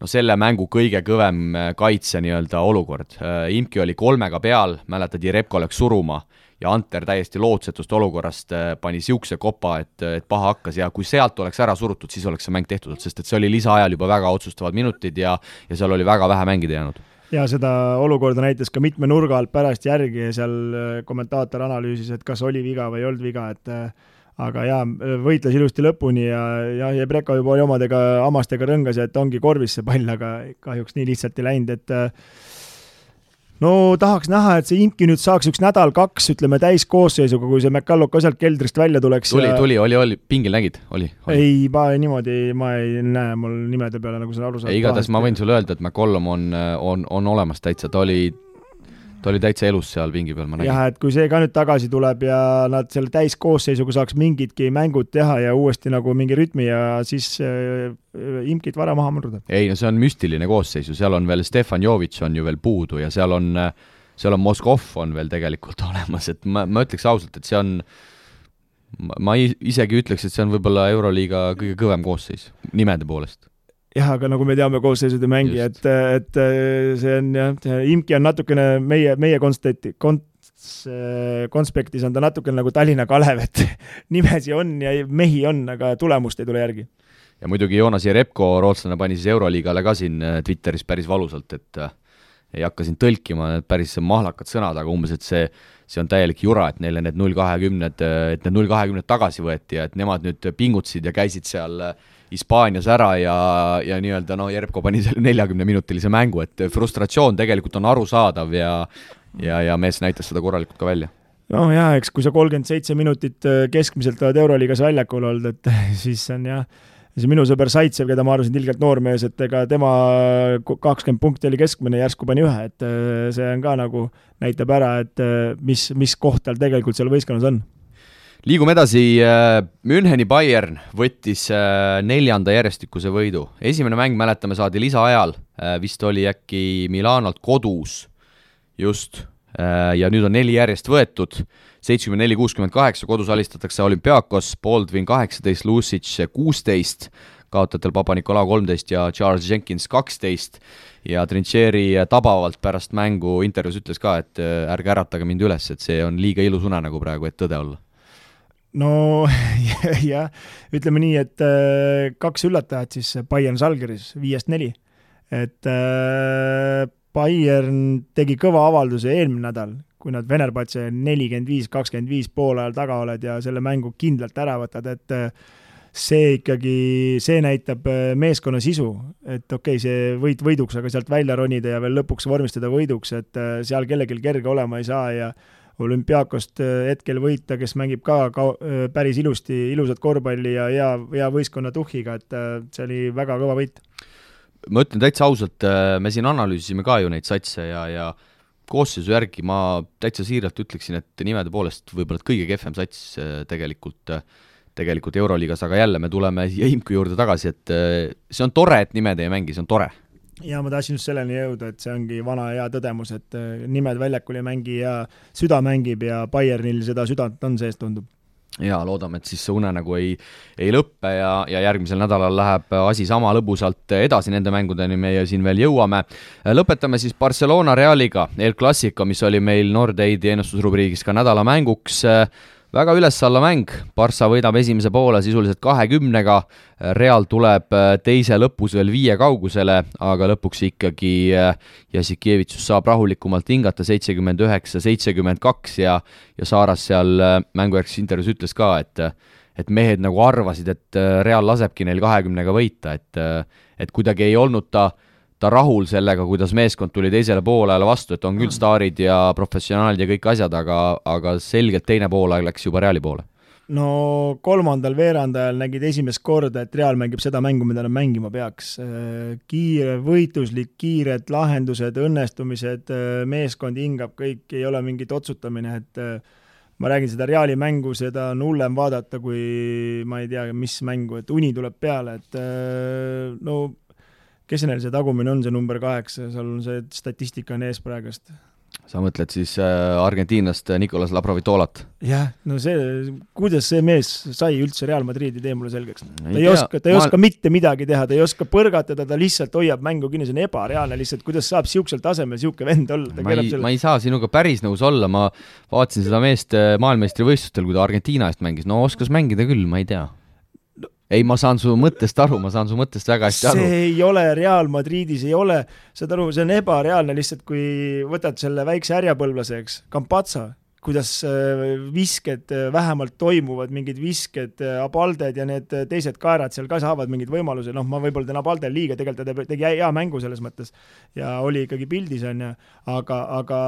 selle mängu kõige kõvem kaitse nii-öelda olukord. Imki oli 3 peal, mäletad, Jerebko läks suruma ja Hunter täiesti lootsetust olukorrast pani siukse kopa, et paha hakkas ja kui sealt oleks ära surutud, siis oleks see mäng tehtud, sest et see oli lisaajal juba väga otsustavad minutid ja seal oli väga vähe mängida jäänud. Ja seda olukorda näitas ka mitme nurga alt pärast järgi ja seal kommentaator analüüsis, et kas oli viga või ei olnud viga, aga jaa, võitles ilusti lõpuni ja Jebreka juba oli omadega hamastega rõngas ja et ongi korvis see pall, aga kahjuks nii lihtsalt ei läinud, et no tahaks näha, et see Imki nüüd saaks 1 nädal-2, ütleme täiskoosseisuga, kui see McCallum ka sealt keldrist välja tuleks. Oli, pingil nägid? Oli. Ei, ma ei näe mul nimede peale, nagu sa aru saad. Igatahes ma võin sulle öelda, et McCallum on olemas täitsa, ta oli täitsa elus seal pingi peal, ma nägin. Jah, et kui see ka nüüd tagasi tuleb ja nad selle täiskoosseisuga saaks mingidki mängud teha ja uuesti nagu mingi rütmi ja siis Imkit vara maha murda. Ei, no see on müstiline koosseisu, seal on veel Stefan Jovic on ju veel puudu ja seal on Moskov on veel tegelikult olemas, et ma ütleks ausalt, et see on, ma isegi ütleks, et see on võib-olla Euroliiga kõige kõvem koosseis nimede poolest. Jah, aga nagu me teame koosseisude mängi, et see on jah, Imki on natukene meie konspektis on ta natukene nagu Tallinna Kalev, et nimesi on ja mehi on, aga tulemust ei tule järgi. Ja muidugi Joonas Jerebko, rootslane, pani siis Euroliigale ka siin Twitteris päris valusalt, et ei hakka siin tõlkima päris mahlakad sõnad, aga umbes, et see on täielik jura, et neile need 0-20 tagasi võeti ja et nemad nüüd pingutsid ja käisid seal Hispaanias ära ja nii-öelda Jerebko pani selle 40-minutilise mängu, et frustratsioon tegelikult on arusaadav ja mees näitas seda korralikult ka välja. No jah, eks kui sa 37 minutit keskmiselt oled Euroliigas väljakul olnud, et siis on jah, see minu sõber Saitsev, keda ma arvasin tilgelt noormees, et ega tema 20 punkti oli keskmine, järsku pani 1, et see on ka nagu näitab ära, et mis koht tal tegelikult seal võistkonnas on. Liigume edasi, Müncheni Bayern võttis 4. järjestikuse võidu. Esimene mäng, mäletame, saadi lisaajal, vist oli äkki Milanolt kodus just, ja nüüd on 4 järjest võetud, 74-68, kodus alistatakse Olympiakos, Baldwin 18, Lucic 16, kaotajatel Papa-Nikolau 13 ja Charles Jenkins 12 ja Trincheri tabavalt pärast mängu intervjuus ütles ka, et ärge äratage mind üles, et see on liiga ilus unenägu praegu, et tõde olla. No jah, ütleme nii, et 2 üllatajat siis Bayern Žalgiris 5-4, et Bayern tegi kõva avalduse eelmine nädal, kui nad Venerbatse 45-25 poole ajal taga oled ja selle mängu kindlalt ära võtad, et see näitab meeskonna sisu, et okei, see võiduks, aga sealt välja ronida ja veel lõpuks vormistada võiduks, et seal kellelgi kerge olema ei saa ja Olümpiakost hetkel võita, kes mängib ka päris ilusat korvpalli ja hea võistkonna tuhhiga, et see oli väga kõva võit. Ma ütlen täitsa ausalt, me siin analüüsisime ka ju neid satse ja koosseisu järgi ma täitsa siiralt ütleksin, et nimede poolest võib-olla kõige kehvem sats tegelikult Euroliigas, aga jälle me tuleme Imku juurde tagasi, et see on tore, et nimed ei mängi, see on tore. Ja ma tahtsin just selleni jõuda, et see ongi vana hea tõdemus, et nimed väljakul ei mängi ja süda mängib ja Bayernil seda südant on sees, tundub. Ja loodame, et siis see unenägu ei lõppe ja järgmisel nädalal läheb asi sama lõbusalt edasi nende mängudeni, meie siin veel jõuame. Lõpetame siis Barcelona Realiga, El Clasico, mis oli meil Nordeidi ennustusrubriigis ka nädala mänguks. väga üles-alla mäng, Barca võidab esimese poole sisuliselt 20-ga, Real tuleb teise lõpus veel 5 kaugusele, aga lõpuks ikkagi Jassikevitsus saab rahulikumalt hingata 79-72 ja Saaras seal mängujärgses intervjuus ütles ka, et mehed nagu arvasid, et Real lasebki neil 20-ga võita, et kuidagi ei olnud ta rahul sellega, kuidas meeskond tuli teisele poolele vastu, et on küll staarid ja professionaalid ja kõik asjad, aga selgelt teine poolaeg läks juba Reali poole. No kolmandal veerandajal nägid esimest korda, et Real mängib seda mängu, mida nad mängima peaks. Kiire, võitluslik, kiired lahendused, õnnestumised, meeskond hingab, kõik ei ole mingit otsutamine, et ma räägin seda Reali mängu, seda on hullem vaadata, kui ma ei tea, mis mängu, et uni tuleb peale, et no kes neil see tagumine on, see number 8, seal on see statistika on ees praegust. Sa mõtled siis argentiinlast Nicolas Laprovitolat? Jah, no kuidas see mees sai üldse Real Madridi, tee mulle selgeks. Ta ei oska mitte midagi teha, ta ei oska põrgatada, ta lihtsalt hoiab mängu kinni, see on ebareaalne lihtsalt, kuidas saab siuksel tasemel siuke vend olla. Ma ei saa sinuga päris nõus olla, ma vaatasin seda meest maailmeistrivõistlustel, kui ta Argentiina eest mängis, no oskas mängida küll, ma ei tea. Ei, ma saan su mõttest aru, väga hästi aru. See ei ole Real Madridis, ei ole, saad aru, see on ebareaalne lihtsalt, kui võtad selle väikse härjapõlvlaseks, Campazzo, kuidas visked vähemalt toimuvad, mingid visked, Abalded ja need teised kaerad seal ka saavad mingid võimalused, noh, ma võib-olla teen Abaldel liiga, tegelikult ta tegi hea mängu selles mõttes ja oli ikkagi pildis, aga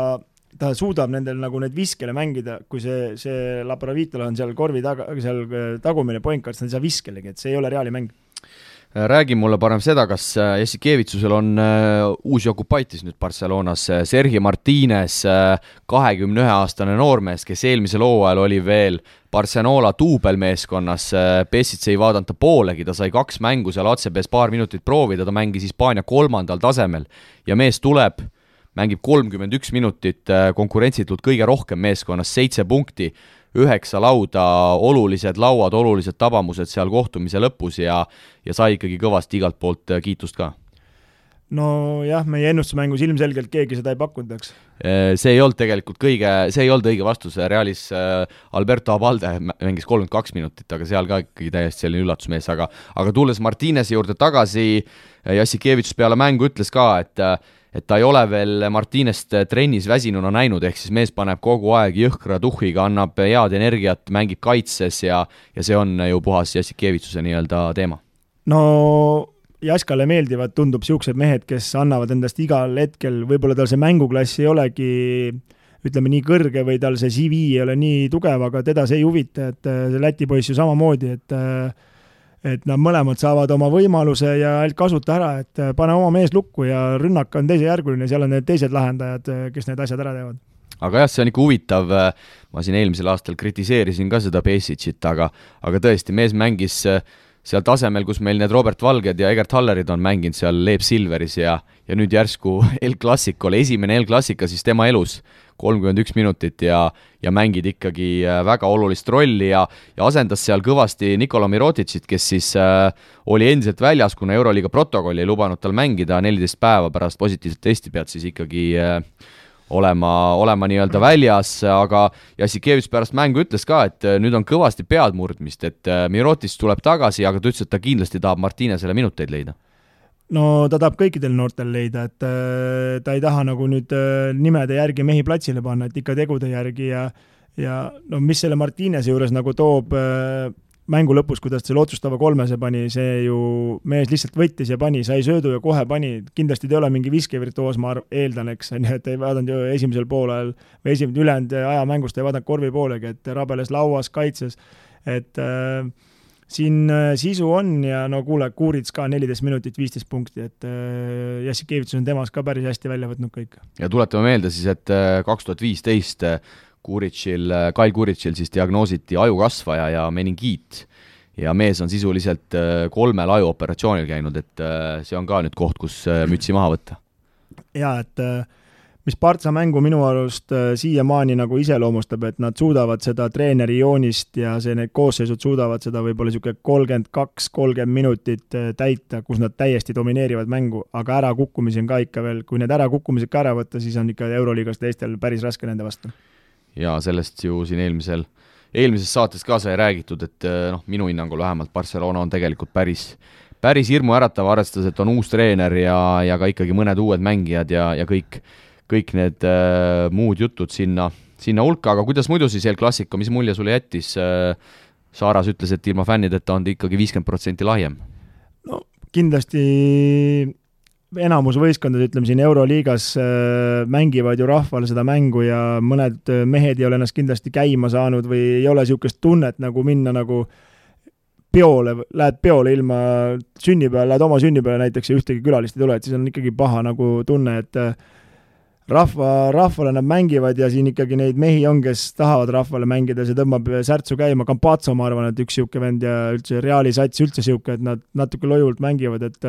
ta suudab nendel nagu need viskele mängida, kui see Laprovitola on seal korvi seal tagumine pointkart, ta ei saa viskelegi, et see ei ole Reali mäng. Räägi mulle parem seda, kas Jassikevitsusel on uusi okupaitis nüüd Barcelonas, Sergi Martínez, 21-aastane noormees, kes eelmisel hooajal oli veel Barcelona duubelmeeskonnas, Pesic ei vaadanud ta poolegi, ta sai 2 mängu seal ACB-s paar minutit proovida, ta mängis Hispaania 3. tasemel ja mees tuleb, mängib 31 minutit, konkurentsitult kõige rohkem meeskonnas, 7 punkti, 9 lauda, olulised lauad, olulised tabamused seal kohtumise lõpus ja sai ikkagi kõvasti igalt poolt kiitust ka. No jah, meie ennustusmängus ilmselgelt keegi seda ei pakkunud, eks. See ei olnud tegelikult õige vastus, Realis Alberto Abalde mängis 32 minutit, aga seal ka ikkagi täiesti selline üllatusmees, aga tulles Martínezi juurde tagasi, Jassikevitsus peale mängu ütles ka, et ta ei ole veel Martínest trennis väsinuna näinud, ehk siis mees paneb kogu aeg jõhkra tuhhiga, annab head energiat, mängib kaitses ja see on ju puhas Jassikevitsuse nii-öelda teema. No Jaskale meeldivad, tundub siuksed mehed, kes annavad endast igal hetkel, võib-olla tal see mänguklass ei olegi, ütleme nii kõrge või tal see CV ei ole nii tugev, aga teda see ei huvita, et see Läti poiss ju samamoodi, et nad mõlemad saavad oma võimaluse ja kasuta ära, et pane oma mees lukku ja rünnak on teisejärguline, seal on need teised lahendajad, kes need asjad ära teevad. Aga jah, see on ikka huvitav, ma siin eelmisel aastal kritiseerisin ka seda Pesicit, aga tõesti, mees mängis seal tasemel, kus meil need Robert Valged ja Egert Hallerid on mänginud seal Leeb Silveris ja nüüd järsku El Clasicol, esimene El Clasica siis tema elus 31 minutit ja mängid ikkagi väga olulist rolli ja asendas seal kõvasti Nikola Miroticit, kes siis oli endiselt väljas, kuna Euroliiga protokolli ei lubanud tal mängida 14 päeva pärast positiivset testi pead siis ikkagi olema nii-öelda väljas, aga Jassikevitsus pärast mängu ütles ka, et nüüd on kõvasti pead murdmist, et Mirotic tuleb tagasi, aga ta ütles, et ta kindlasti tahab Martínezele minuteid leida. No ta tahab kõikidel noortel leida, et ta ei taha nagu nüüd nimede järgi mehi platsile panna, et ikka tegude järgi ja no mis selle Martínezi juures nagu toob mängu lõpus, kuidas selle otsustava 3 pani, see ju mees lihtsalt võttis ja pani, sai söödu ja kohe pani, kindlasti ta ei ole mingi viskevirtuoos, ma eeldan, eks, et ei vaadanud ju esimesel poolel või ülejäänud aja mängust ei vaadanud korvi poolegi, et rabeles lauas, kaitses, et siin sisu on ja no kuule, Kuurits ka 14 minutit, 15 punkti, et Jassikevitsus on temas ka päris hästi välja võtnud kõik. Ja tuletame meelde siis, et 2015 Kyle Kuritšil siis diagnoositi ajukasvaja ja meningiit ja mees on sisuliselt 3 ajuoperatsioonil käinud, et see on ka nüüd koht, kus mütsi maha võtta. Ja, et mis Partsa mängu minu arust siiamaani nagu iseloomustab, et nad suudavad seda treeneri joonist ja need koosseisud suudavad seda võib-olla 32-30 minutit täita, kus nad täiesti domineerivad mängu, aga ärakukkumisi on ka ikka veel, kui need ärakukkumised ka ära võtta, siis on ikka Euroliigas teistel päris raske nende vastu. Ja sellest ju siin eelmisel eelmises saates ka sai räägitud, et minu hinnangul vähemalt Barcelona on tegelikult päris hirmuäratav, arvestades, et on uus treener ja ka ikkagi mõned uued mängijad ja kõik need muud jutud sinna hulka, aga kuidas muidu siis El Clasico, mis mulje sulle jättis? Saaras ütles, et ilma fännideta on ta ikkagi 50% lahjem. No kindlasti enamus võistkondad, ütleme siin Euroliigas mängivad ju rahvale seda mängu ja mõned mehed ei ole ennast kindlasti käima saanud või ei ole niisugust tunnet nagu minna nagu lähed peole ilma sünnipäeval, lähed oma sünnipäeval näiteks ja ühtegi külalist ei tule, et siis on ikkagi paha nagu tunne, et rahvale nad mängivad ja siin ikkagi neid mehi on, kes tahavad rahvale mängida, see tõmbab särtsu käima. Campazzo, ma arvan, et üks siuke vend ja üldse Reali sats üldse siuke, et nad natuke lojult mängivad, et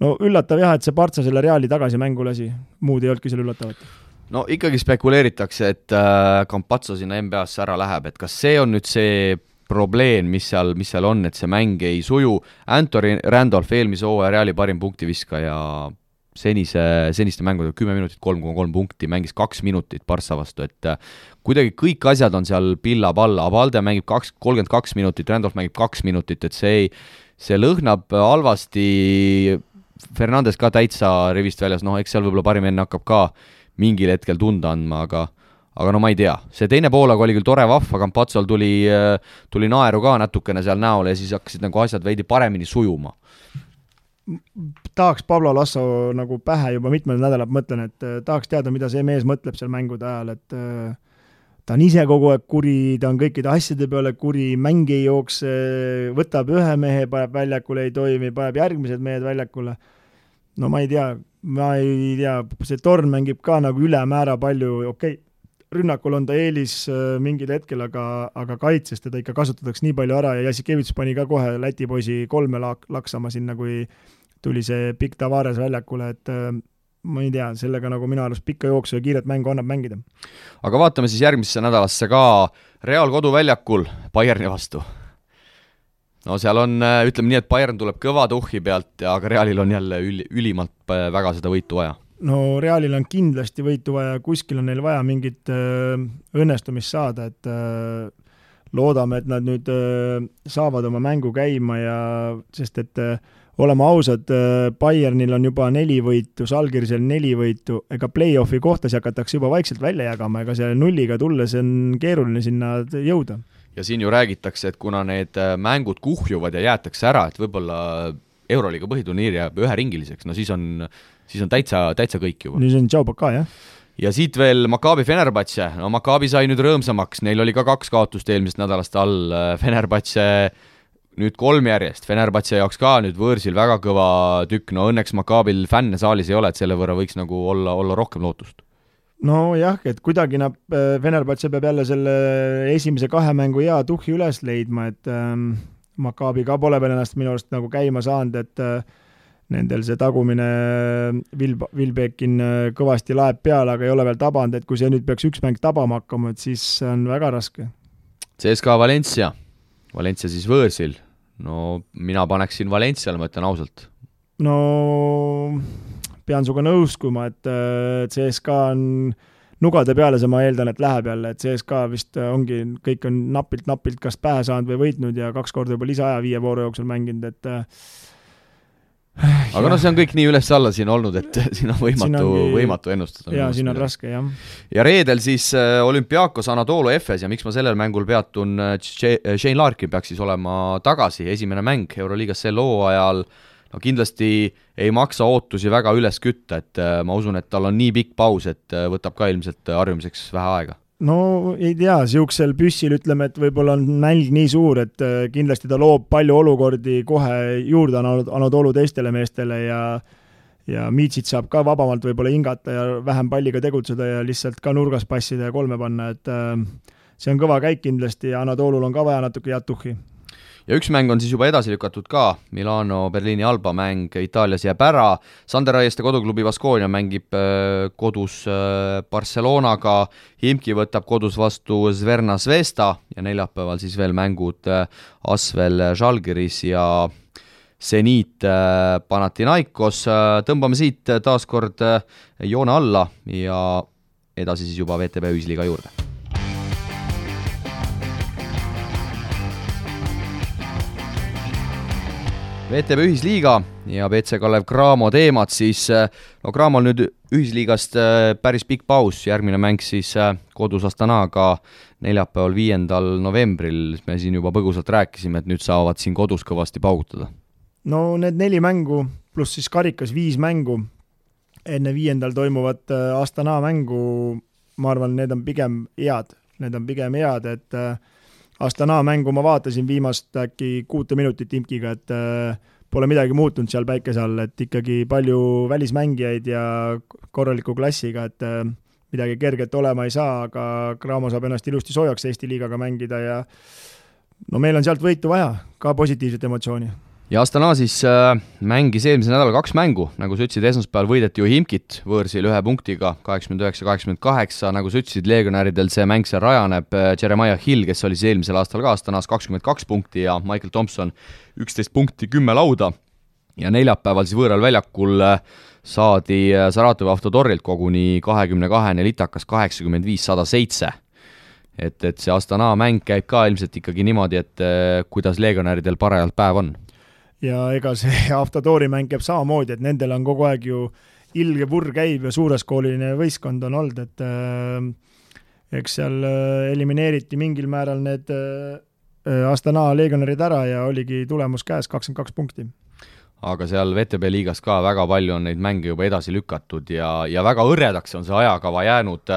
no üllatav jah, et see Partsa selle Reali tagasi mängu lasi. Muud ei olnudki selle üllatavat. No ikkagi spekuleeritakse, et Campazzo sinna NBA-sse ära läheb, et kas see on nüüd see probleem, mis seal on, et see mäng ei suju. Anthony Randolph eelmise hooaja Reali parim punktiviska ja seniste mängudega 10 minutit, 3,3 punkti, mängis 2 minutit Barca vastu, et kuidagi kõik asjad on seal pilla-palla, Abalde mängib 32 minutit, Randolph mängib 2 minutit, et see lõhnab halvasti, Fernandes ka täitsa rivist väljas, eks seal võib-olla parim enne hakkab ka mingil hetkel tunda andma, aga no ma ei tea, see teine poolaga oli küll tore vahva, Campazzol tuli naeru ka natukene seal näole ja siis hakkasid nagu asjad veidi paremini sujuma. Tahaks Pablo Lasso nagu pähe juba mitmed nädalad mõtlen, et tahaks teada, mida see mees mõtleb seal mängude ajal, et ta on ise kogu aeg kuri, ta on kõikide asjade peale kuri, mängi ei jookse, võtab ühe mehe, paneb väljakule, ei toimi, paneb järgmised mehed väljakule. No ma ei tea, see Torn mängib ka nagu ülemäära palju, okei, rünnakul on ta eelis mingil hetkel, aga kaitses teda ikka kasutatakse nii palju ära ja Jasikevits pani ka kohe Läti poisi 3 laksama sinna, kui tuli see pikk Tavares väljakule, et ma ei tea, sellega nagu minu arust pikka jooksu ja kiiret mängu annab mängida. Aga vaatame siis järgmisse nädalasse ka Real koduväljakul Bayerni vastu. No seal on, ütleme nii, et Bayern tuleb kõva tuhhi pealt, aga Realil on jälle ülimalt väga seda võitu vaja. No Realil on kindlasti võitu vaja, kuskil on neil vaja mingit õnnestumist saada, et loodame, et nad nüüd saavad oma mängu käima ja sest et oleme ausad, Bayernil on juba 4 võitu, Žalgirisel 4 võitu, ega play-offi kohtasi hakatakse juba vaikselt välja jagama, ega selle nulliga tulles on keeruline sinna jõuda. Ja siin ju räägitakse, et kuna need mängud kuhjuvad ja jäetakse ära, et võib-olla Euroliiga põhiturniir jääb üheringiliseks, no siis on täitsa kõik juba. Nüüd on Tšaubaka, jah? Ja siit veel Maccabi Fenerbahce, no Maccabi sai nüüd rõõmsamaks, neil oli ka 2 kaotust eelmisest nädalast all, Fenerbahce nüüd 3 järjest, Fenerbahce jaoks ka nüüd võõrsil väga kõva tükk, no õnneks Maccabil fänne saalis ei ole, et selle võrra võiks nagu olla rohkem lootust. No jah, et kuidagi Fenerbahce peab jälle selle esimese 2 mängu hea tuhhi üles leidma, et Maccabi ka pole veel ennast minu arust nagu käima saanud, et nendel see tagumine Vilbekin kõvasti laeb peale, aga ei ole veel tabanud, et kui see nüüd peaks üks mäng tabama hakkama, et siis on väga raske. CSKA Valencia siis võõrsil, no mina paneksin Valenciale, ma ütlen ausalt. No pean suga nõuskuma, et CSKA on nugade peale, see ma eeldan, et läheb jälle, et CSKA vist ongi, kõik on napilt kas pähe saanud või võitnud ja 2 korda juba lisaaja 5 vooru jooksul mänginud, et aga no see on kõik nii üles-alla siin olnud, et siin on võimatu ennustada. Jaa, siin on raske, jah. Ja reedel siis Olympiakos Anadolu Efes ja miks ma sellel mängul peatun, Shane Larkin peaks siis olema tagasi, esimene mäng Euroliigas sel hooajal, no kindlasti ei maksa ootusi väga üles kütta, et ma usun, et tal on nii pikk paus, et võtab ka ilmselt harjumiseks vähe aega. No ei tea, siuksel püssil ütleme, et võib-olla on nälg nii suur, et kindlasti ta loob palju olukordi kohe juurde Anadolu teistele meestele ja Miitsit saab ka vabamalt võib-olla hingata ja vähem palliga tegutseda ja lihtsalt ka nurgas passida ja 3 panna, et see on kõva käik kindlasti ja Anadolul on ka vaja natuke head tuhhi. Ja üks mäng on siis juba edasi lükatud ka, Milano Berliini Alba mäng Itaalias jääb ära, Sander Aieste koduklubi Baskonia mängib kodus Barcelonaga, Himki võtab kodus vastu Zverna Zvezda ja neljapäeval siis veel mängud Asvel Žalgiris ja Zenit Panathinaikos. Tõmbame siit taaskord joone alla ja edasi siis juba VTB ühisliiga juurde. VTB ühisliiga ja BC Kalev Cramo teemad, siis no Cramol nüüd ühisliigast päris pikk paus, järgmine mäng siis kodus Astanaga neljapäeval 5. novembril, me siin juba põgusalt rääkisime, et nüüd saavad siin kodus kõvasti paugutada. No need 4 mängu pluss siis karikas 5 mängu enne 5. toimuvat Astana mängu, ma arvan, need on pigem head, et Astana mängu ma vaatasin viimast äkki 6 minutit Imkiga, et pole midagi muutunud seal päikese all, et ikkagi palju välismängijaid ja korraliku klassiga, et midagi kerget olema ei saa, aga Cramo saab ennast ilusti soojaks Eesti liigaga mängida ja no meil on sealt võitu vaja, ka positiivset emotsiooni. Ja Astana siis mängis eelmise nädala 2 mängu, nagu sa ütlesid, esmaspäeval võideti ju Himkit võõrsil 1 punktiga, 89-88, nagu sa ütlesid, legionäridel see mäng seal rajaneb, Jeremiah Hill, kes oli siis eelmisel aastal ka Astanas 22 punkti ja Michael Thompson 11 punkti, 10 lauda ja neljapäeval siis võõral väljakul saadi Saratovi Avtotorilt koguni 22 litakas 85-107. Et see Astana mäng käib ka ilmselt ikkagi niimoodi, et kuidas legionäridel parajalt päev on. Ja ega see Avtotori mäng käib samamoodi, et nendel on kogu aeg ju ilge purr käib ja suureskooline võistkond on olnud, et eks seal elimineeriti mingil määral need Astana legionärid ära ja oligi tulemus käes 22 punkti. Aga seal VTB liigas ka väga palju on neid mänge juba edasi lükatud ja väga õrredaks on see ajakava jäänud.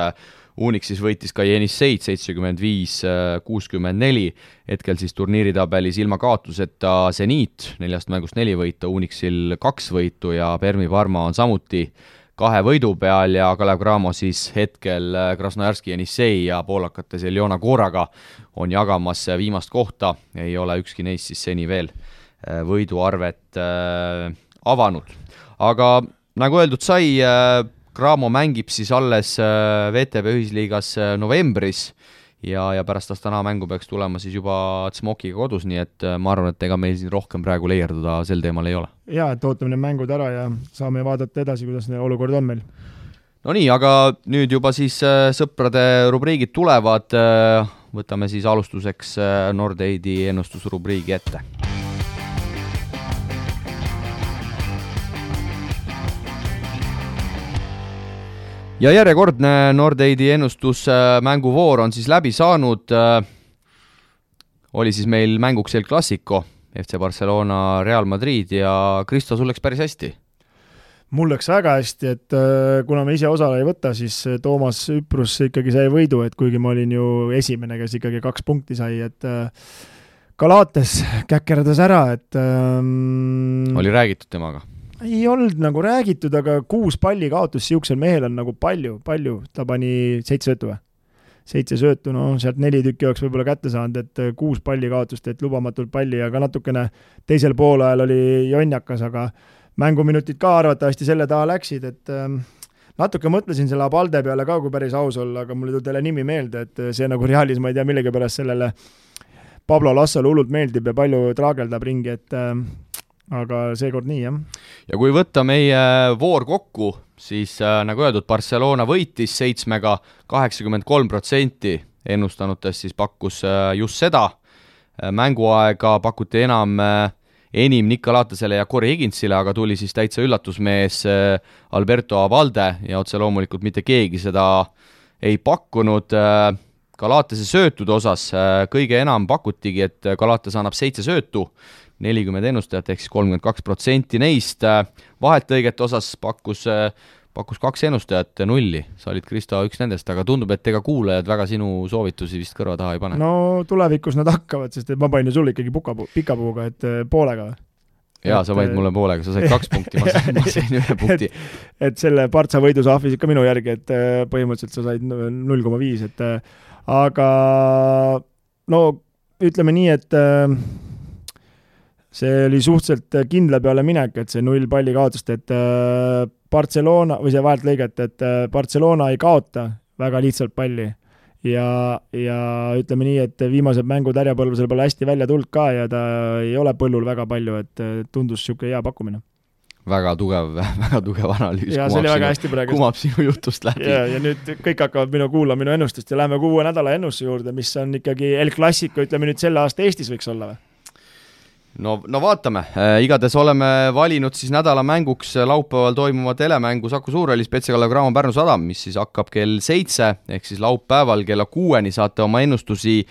Unix siis võitis ka Jenisseid 75-64, hetkel siis turniiritabelis ilma kaotuseta Zeniit, 4 mängust 4 võitu, Unixil 2 võitu ja Permi Parma on samuti 2 võidu peal ja Kalev Cramo siis hetkel Krasnojarski Jenissei ja poolakate Seljona Koraga on jagamas viimast kohta, ei ole ükski neist siis seni veel võiduarvet avanud. Aga nagu öeldud sai, Cramo mängib siis alles VTB ühisliigas novembris ja pärast Astana mängu peaks tulema siis juba Smokiga kodus, nii et ma arvan, et ega meil siin rohkem praegu leierduda sel teemal ei ole. Jaa, et ootame need mängud ära ja saame vaadata edasi, kuidas olukord on meil. No nii, aga nüüd juba siis sõprade rubriigid tulevad, võtame siis alustuseks Nordeidi ennustusrubriigi ette. Ja järjekordne Nordeidi ennustusmänguvoor on siis läbi saanud. Oli siis meil mänguks El Clasico, FC Barcelona, Real Madrid ja Kristo, sul läks päris hästi? Mul läks väga hästi, et kuna me ise osale ei võta, siis Toomas Üprus ikkagi sai võidu, et kuigi ma olin ju esimene, kes ikkagi 2 punkti sai, et Galates käkkerdas ära, et oli räägitud temaga? Ei olnud nagu räägitud, aga 6 palli kaotus siuksel mehel on nagu palju, ta pani 7 söötu või? 7 söötu, no sealt 4 tükki oleks võib-olla kätte saanud, et 6 palli kaotust, et lubamatult palli, aga natukene teisel poolajal oli jonjakas, aga mänguminutid ka arvatavasti selle taha läksid, et natuke mõtlesin selle Abalde peale ka, kui päris aus olla, aga mul ei tule nimi meelde, et see nagu Realis, ma ei tea, millegi pärast sellele Pablo Lassole hullult meeldib ja palju traageldab ringi, et aga seekord nii, jah. Ja kui võtta meie voor kokku, siis nagu öeldud, Barcelona võitis 7-ga 83%, ennustanutes siis pakkus just seda. Mänguaega pakuti enim Nick Galatasele ja Corey Higginsile, aga tuli siis täitsa üllatusmees Alberto Abalde ja otse loomulikult mitte keegi seda ei pakkunud. Galatase söötude osas kõige enam pakutigi, et Galatas annab 7 söötu, 40 ennustajat ehk siis 32% neist. Vahetlõigete osas pakkus 2 ennustajat 0. Sa olid, Kristo, üks nendest, aga tundub, et ega kuulajad väga sinu soovitusi vist kõrva taha ei pane. No tulevikus nad hakkavad, sest ma panin sul ikkagi pikapuuga, et poolega. Jaa, sa võid mulle poolega, sa said 2 punkti, ma sain 1 punkti. Et selle Partsa võidu sa ahvisid ka minu järgi, et põhimõtteliselt sa said 0,5, et aga no ütleme nii, et see oli suhteliselt kindla peale minek, et see 0 palli kaotust, et Barcelona, või see vahelt lõiget, et Barcelona ei kaota väga lihtsalt palli ja ütleme nii, et viimased mängud härjapõlvusel pole hästi välja tulnud ka ja ta ei ole põllul väga palju, et tundus siuke hea pakkumine. Väga tugev analüüs, kumab sinu jutust läbi. Ja nüüd kõik hakkavad kuulama minu ennustust ja läheme 6 nädala ennustuse juurde, mis on ikkagi El Clasico, ütleme nüüd selle aasta Eestis võiks olla või? no vaatame, igatahes oleme valinud siis nädala mänguks laupäeval toimuva telemängu Saku Suurhallis Petsakalev Cramo Pärnu Sadam, mis siis hakkab kell 7 ehk siis laupäeval kella 6 saate oma ennustusi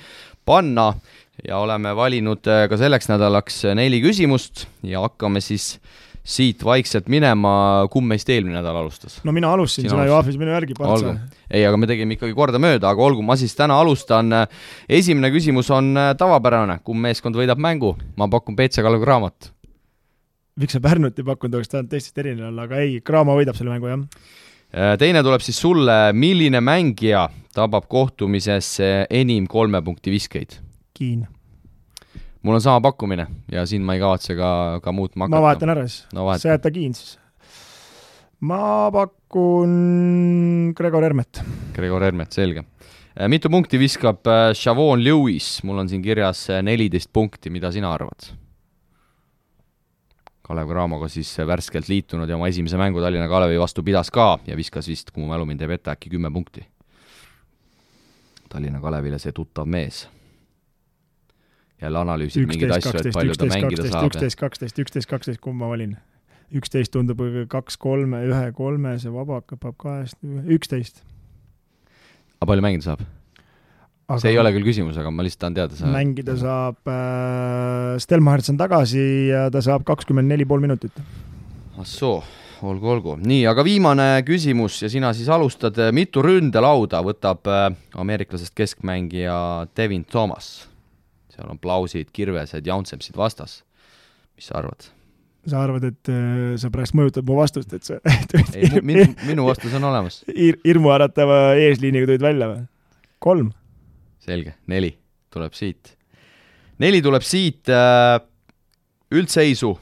panna ja oleme valinud ka selleks nädalaks 4 küsimust ja hakkame siis siit vaikselt minema, kumb meist eelmine nädal alustas? No mina alustasin, sina ju ahvis minu järgi partsa. Ei, aga me tegime ikkagi korda mööda, aga olgu, ma siis täna alustan. Esimene küsimus on tavapärane, kumb meeskond võidab mängu? Ma pakun Petsakalev Cramot. Miks sa Pärnut ei pakkunud, oleks tahan teistest erinev olla, aga ei, Cramo võidab selle mängu, jah. Teine tuleb siis sulle, milline mängija tabab kohtumises enim 3 punkti viskeid? Kiin. Mul on sama pakkumine ja siin ma ei kavatse ka muutma hakata. Ma vahetan ära siis. Sa jätta Kiin siis. Ma pakun Gregor Hermet. Gregor Hermet, selge. Mitu punkti viskab Shavon Lewis? Mul on siin kirjas 14 punkti, mida sina arvad? Kalev Cramoga siis värskelt liitunud ja oma esimese mängu Tallinna Kalevi vastu pidas ka ja viskas vist, kui mu mälu mind teeb ette, äkki 10 punkti. Tallinna Kalevile see tuttav mees. Jälle analüüsid mingeid asju, et palju ta mängida saab. 11-12, kumb ma valin? 11 tundub 2-3, 1-3, see vaba hakkab 11. Aga palju mängida saab? Aga see ei ole küll küsimus, aga ma lihtsalt tahan teada. Mängida saab Stelmacherts on tagasi ja ta saab 24,5 minutit. Assoo, olgu. Nii, aga viimane küsimus ja sina siis alustad. Mitu ründelauda võtab ameeriklasest keskmängija Devin Thomas? Seal on Plausid, Kirvesed, Jaunsepsid vastas. Mis sa arvad? Sa arvad, et sa pärast mõjutad mu vastust, et sa... Ei, minu vastus on olemas. Irmu äratava eesliiniga tulid välja või? 3. Selge, 4 tuleb siit. 4 tuleb siit üldseisu.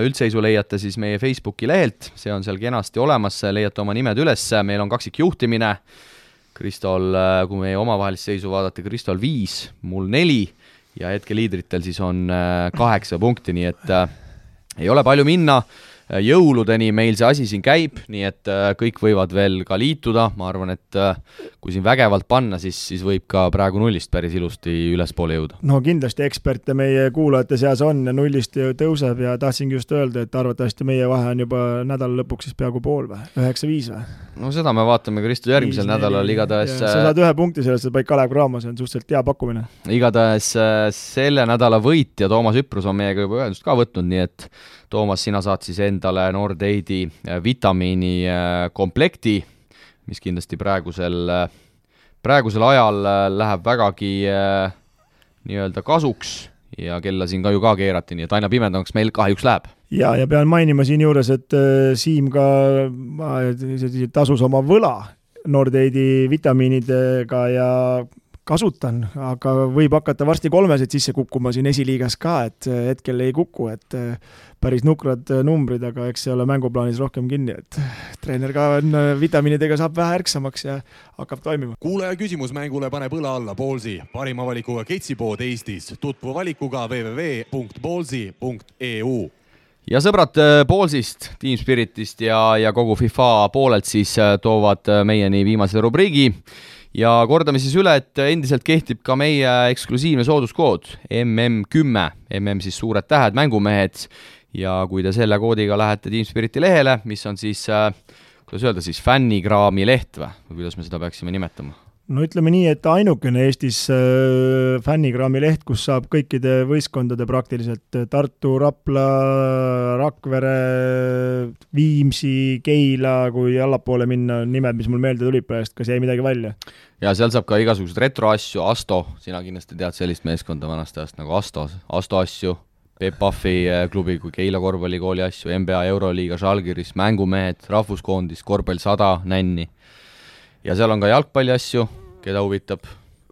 Üldseisu leiate siis meie Facebooki lehelt, see on seal kenasti olemas, leiate oma nimed üles, meil on kaksik juhtimine. Kristol, kui meie omavahelist seisu vaadata, Kristol 5, mul 4 ja hetke liidritel siis on 8 punkti, nii et ei ole palju minna. Jõuludeni meil see asi siin käib, nii et kõik võivad veel ka liituda. Ma arvan, et kui siin vägevalt panna, siis võib ka praegu nullist päris ilusti ülespoole jõuda. No kindlasti eksperte meie kuulajate seas on ja nullist tõuseb ja tahtsingi just öelda, et arvatavasti meie vahe on juba nädala lõpuks siis peaaegu pool või? 9-5 või? No seda me vaatame Kristo järgmisel nädalal igatahes. Sa saad 1 punkti sellest, et paik Kalev Cramo, see on suhteliselt hea pakkumine. Igatahes selle nädala võitja Toomas Üprus on meiega juba ühendust ka võtnud, nii et Toomas, sina saad siis endale Nordeidi vitamiini komplekti, mis kindlasti praegusel ajal läheb vägagi nii-öelda kasuks ja kella siin ka ju ka keerati, nii et aina pimedamaks meil kahjuks läheb. Ja pean mainima siin juures, et Siim ka tasus oma võla Nordeidi vitamiinidega ja kasutan, aga võib hakata varsti 3 sisse kukkuma siin esiliigas ka, et hetkel ei kuku, et päris nukrad numbrid, aga eks see ole mänguplaanis rohkem kinni, et treener ka vitamiinidega saab vähe ärksamaks ja hakkab toimima. Kuulaja küsimus mängule paneb õla alla Ballsi, parima valikuga ketsipood Eestis, tutvu valikuga www.ballsi.eu. Ja sõbrad Ballsist, Team Spiritist ja kogu FIFA poolelt siis toovad meieni viimase rubriigi. Ja kordame siis üle, et endiselt kehtib ka meie eksklusiivne sooduskood MM10, MM siis suured tähed, mängumehed ja kui te selle koodiga lähete Team Spiriti lehele, mis on siis, kuidas öelda siis, fännikraami leht või kuidas me seda peaksime nimetama? No ütleme nii, et ainukene Eestis fännikraami leht, kus saab kõikide võistkondade praktiliselt Tartu, Rapla, Rakvere, Viimsi, Keila, kui allapoole minna nimed, mis mul meelde tulid praegust, kas jäi midagi välja? Ja seal saab ka igasugused retroasju, Asto, sina kindlasti tead sellist meeskonda vanast ajast nagu Asto asju, Peep Pahvi klubi kui Keila korvpallikooli asju, NBA Euroliiga, Žalgiris, mängumehed, rahvuskoondis, korvpall 100, nänni. Ja seal on ka jalgpalli asju, keda huvitab.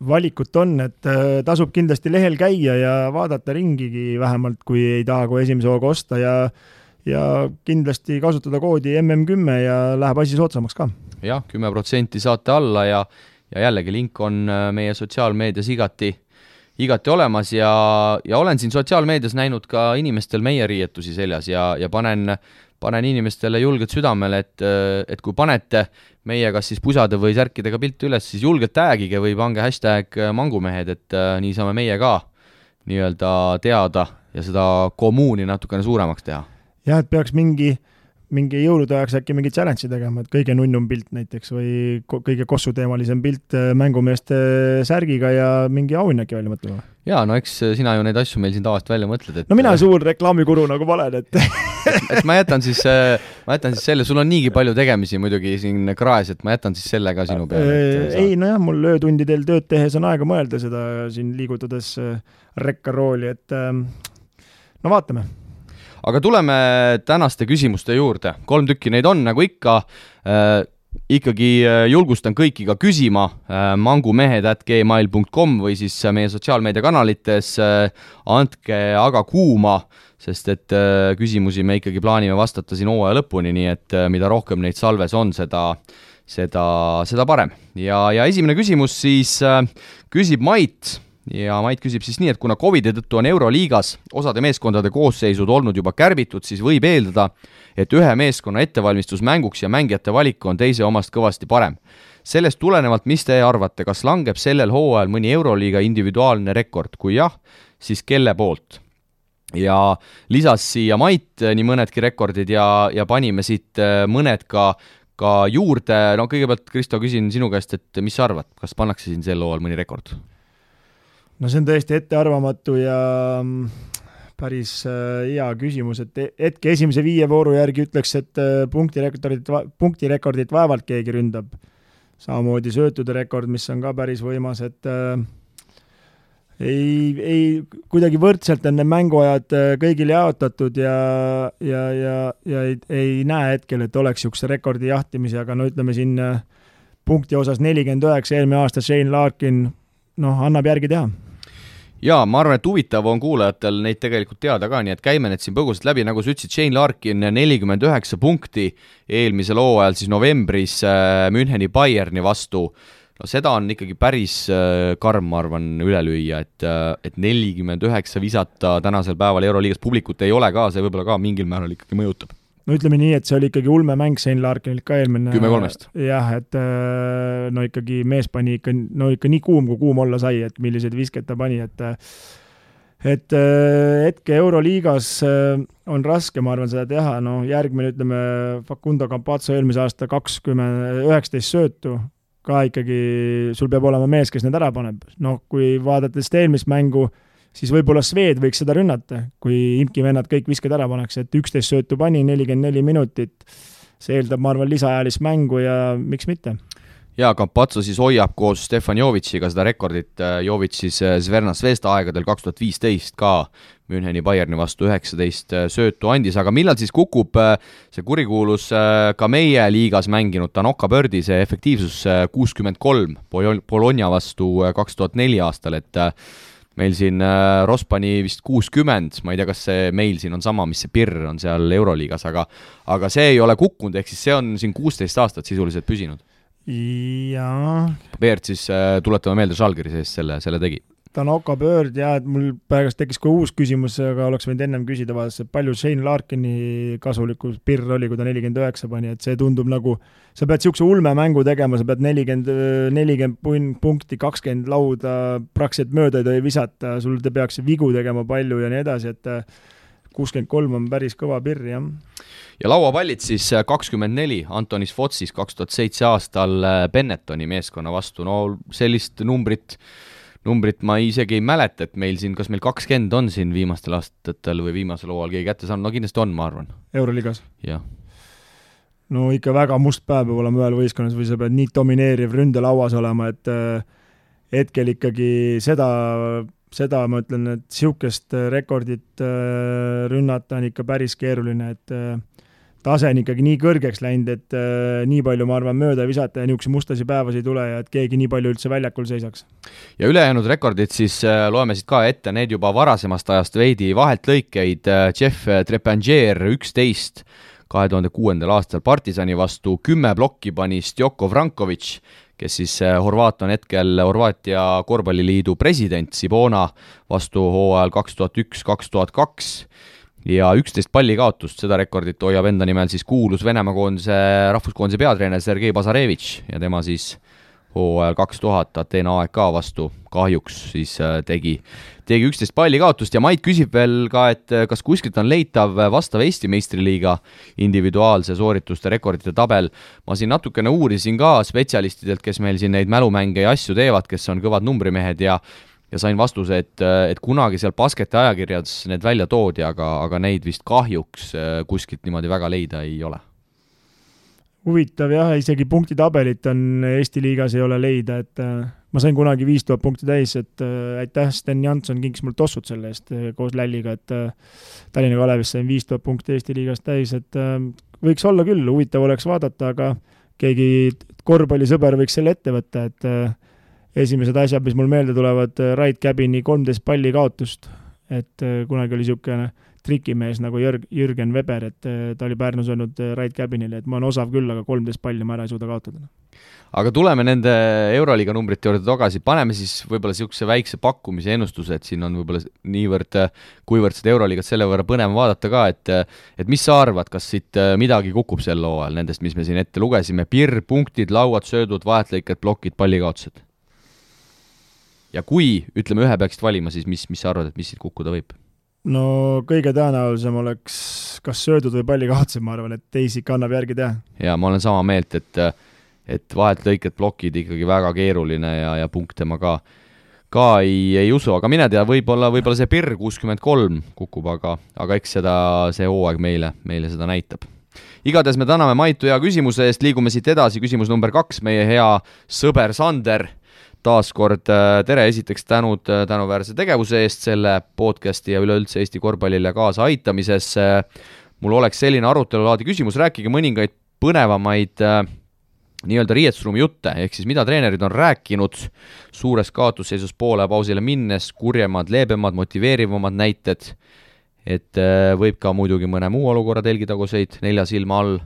Valikut on, et tasub kindlasti lehel käia ja vaadata ringigi vähemalt, kui ei taha kui esimese hooga osta ja kindlasti kasutada koodi MM10 ja läheb asi soodsamaks ka. Jah, 10% saate alla ja jällegi link on meie sotsiaalmeedias igati olemas ja olen siin sotsiaalmeedias näinud ka inimestel meie riietusi seljas ja panen inimestele julgelt südamele, et kui panete meie kas siis pusade või särkidega pilti üles, siis julgelt tagige või pange hashtag mangumehed, et nii saame meie ka nii-öelda teada ja seda kommuuni natukene suuremaks teha. Jah, et peaks mingi jõulude ajaks äkki mingi challenge tegema, et kõige nunnum pilt näiteks või kõige kossuteemalisem pilt mängumeeste särgiga ja mingi auhinna äkki välja mõtlema. Jaa, no eks sina ju neid asju meil siin tavaliselt välja mõtled. No mina suur reklaamikuru nagu valen, et et ma jätan siis selle, sul on niigi palju tegemisi muidugi siin kraes, et ma jätan siis selle ka sinu peale. Ei, nojah, mul öötundidel tööd tehes on aega mõelda seda siin liigutades rekkarooli, et no vaatame. Aga tuleme tänaste küsimuste juurde. 3 tükki neid on, nagu ikka. Ikkagi julgustan kõiki ka küsima mangumehed@gmail.com või siis meie sotsiaalmeediakanalites. Andke aga kuuma, sest et küsimusi me ikkagi plaanime vastata siin hooaja lõpuni, nii et mida rohkem neid salves on, seda parem. Ja esimene küsimus siis küsib Mait. Ja Mait küsib siis nii, et kuna Covidi tõttu on Euroliigas osade meeskondade koosseisud olnud juba kärbitud, siis võib eeldada, et ühe meeskonna ettevalmistus mänguks ja mängijate valik on teise omast kõvasti parem. Sellest tulenevalt, mis te arvate, kas langeb sellel hooajal mõni Euroliiga individuaalne rekord? Kui jah, siis kelle poolt? Ja lisas siia Mait nii mõnedki rekordid ja panime siit mõned ka juurde. No kõigepealt, Kristo, küsin sinu käest, et mis sa arvad, kas pannakse siin sel hooajal mõni rekord? No see on tõesti ettearvamatu ja päris hea küsimus, et hetke esimese 5 vooru järgi ütleks, et punktirekordit vaevalt keegi ründab. Samamoodi söötude rekord, mis on ka päris võimas, et ei kuidagi võrdselt on need mänguajad kõigil jaotatud ja ei näe hetkel, et oleks niisuguse rekordi jahtimise, aga no ütleme siin punkti osas 49, eelmine aasta Shane Larkin, annab järgi teha. Jaa, ma arvan, et huvitav on kuulajatel neid tegelikult teada ka, nii et käime need siin põgusalt läbi, nagu sa ütlesid, Shane Larkin 49 punkti eelmisel hooajal siis novembris Müncheni Bayerni vastu. No seda on ikkagi päris karm, ma arvan, üle lüüa, et 49 visata tänasel päeval Euroliigas publikut ei ole ka, see võib-olla ka mingil määral ikkagi mõjutab. No ütleme nii, et see oli ikkagi ulme mäng Shane Larkinilt ka eelmine. 10-3. Jah, et ikkagi mees pani ikka nii kuum, kui kuum olla sai, et milliseid viskeid ta pani, et hetke Euroliigas on raske, ma arvan, seda teha. Järgmine, ütleme, Facundo Campazzo eelmise aasta 19 söötu, ka ikkagi sul peab olema mees, kes need ära paneb. Kui vaadates eelmist mängu, siis võib-olla Sved võiks seda rünnata, kui Imki vennad kõik visked ära paneks, et 11 söötu pani, 44 minutit. See eeldab, ma arvan, lisaajalist mängu ja miks mitte? Ja Campazzo siis hoiab koos Stefan Jovitšiga seda rekordit. Jovitš siis Zvezda Zvezda aegadel 2015 ka Müncheni Bayerni vastu 19 söötu andis, aga millal siis kukub see kurikuulus ka meie liigas mänginud Tanoka Birdi, see efektiivsus 63 Bologna vastu 2004 aastal, et meil siin Rospani vist 60, ma ei tea, kas see meil siin on sama, mis see Pirr on seal Euroliigas, aga see ei ole kukkunud, ehk siis see on siin 16 aastat sisuliselt püsinud. Jaa. Beert siis tuletame meelde Žalgiri sees selle tegi. Tanoka Bird, jah, et mul pärast tekkis ka uus küsimus, aga oleks võinud ennem küsida vaadates, et palju Shane Larkini kasulikus Pirr oli, kui ta 49 pani, et see tundub nagu, sa pead niisuguse ulme mängu tegema, sa pead 40 punkti, 20 lauda praktiliselt mööda ei tohi visata, sul te peaks vigu tegema palju ja nii edasi, et 63 on päris kõva Pirr, jah. Ja lauapallid siis 24 Antonis Fotsis 2007 aastal Bennettoni meeskonna vastu, no sellist numbrit ma isegi ei mäleta, et meil siin, kas meil 20 on siin viimastel aastatel või viimasel hooajal keegi kätte saanud, no kindlasti on, ma arvan. Euroliigas? Jah. No ikka väga must päev peab olema ühel võistkonnas või sa pead nii domineeriv ründelauas olema, et hetkel ikkagi seda ma ütlen, et niisugust rekordit rünnata on ikka päris keeruline, et tase on ikkagi nii kõrgeks läinud, et nii palju, ma arvan, mööda visata ja niisuguse mustasi päevas ei tule ja et keegi nii palju üldse väljakul seisaks. Ja ülejäänud rekordid siis loeme siit ka ette, need juba varasemast ajast veidi vahelt lõikeid. Jeff Trepangier 11 2006. aastal Partisani vastu 10 blokki pani Stjoko Vranković, kes siis Horvaat on hetkel Horvaatia korvpalliliidu president, Sibona vastu hooajal 2001-2002 ja 11 pallikaotust, seda rekordit hoiab enda nimel siis kuulus Venemaa koondise rahvuskoondise peatreener Sergei Bazarevitš ja tema siis hooajal 2000 Ateena AEK vastu kahjuks siis tegi 11 palli kaotust ja Mait küsib veel ka, et kas kuskilt on leitav vastav Eesti meistriliiga individuaalse soorituste rekordite tabel. Ma siin natukene uurisin ka spetsialistidelt, kes meil siin neid mälumänge ja asju teevad, kes on kõvad numbrimehed ja sain vastuse, et kunagi seal basketi ajakirjades need välja toodi, aga neid vist kahjuks kuskilt niimoodi väga leida ei ole. Huvitav jah, isegi punktitabelit on Eesti liigas ei ole leida, et ma sain kunagi 5000 punkti täis, et aitäh, Sten Jansson kinkis mul tossud selle eest koos Lälliga, et Tallinna Kalevis sain 5000 punkti Eesti liigas täis, et võiks olla küll, huvitav oleks vaadata, aga keegi korvpallisõber võiks selle ette võtta, et esimesed asjad, mis mul meelde tulevad, Rait Käbini 13 palli kaotust, et kunagi oli niisugune trikimees nagu Jürgen Weber, et ta oli Pärnus olnud Rait Käbinile, et ma olen osav küll, aga 13 palli ma ära ei suuda kaotada. Aga tuleme nende Euroliiga numbrite juurde tagasi, paneme siis võib-olla niisuguse väikse pakkumise ennustuse, et siin on võib-olla niivõrd, kuivõrd seda Euroliigat selle võrra põnev vaadata ka, et mis sa arvad, kas siit midagi kukub sel hooajal nendest, mis me siin ette lugesime, pirr, punktid, lauad, söödud, vahetlõiked, plokid, pallikaotused? Ja kui, ütleme, ühe peaksid valima, siis mis sa arvad, et mis siit kukkuda võib? No kõige tõenäolisem oleks kas söödud või pallikaotused, ma arvan, et teisi ikka annab järgi teha. Ja ma olen sama meelt, et vahetlõiked, plokid ikkagi väga keeruline ja punkte ma ka ei usu, aga mine tea, võib-olla see pirr 63 kukub, aga eks see hooaeg meile seda näitab. Igatahes me täname Maitu hea küsimuse eest, liigume siit edasi, küsimus number 2, meie hea sõber Sander. Taaskord tere, esiteks tänuväärse tegevuse eest selle podcasti ja üleüldse Eesti korvpallile kaasa aitamises. Mul oleks selline arutelulaadi küsimus, rääkige mõningaid põnevamaid nii-öelda riietusruumi jutte, ehk siis mida treenerid on rääkinud suures kaotusseisus poole pausile minnes, kurjemad, leebemad, motiveerivamad näited, et võib ka muidugi mõne muu olukorra telgitaguseid 4 silma all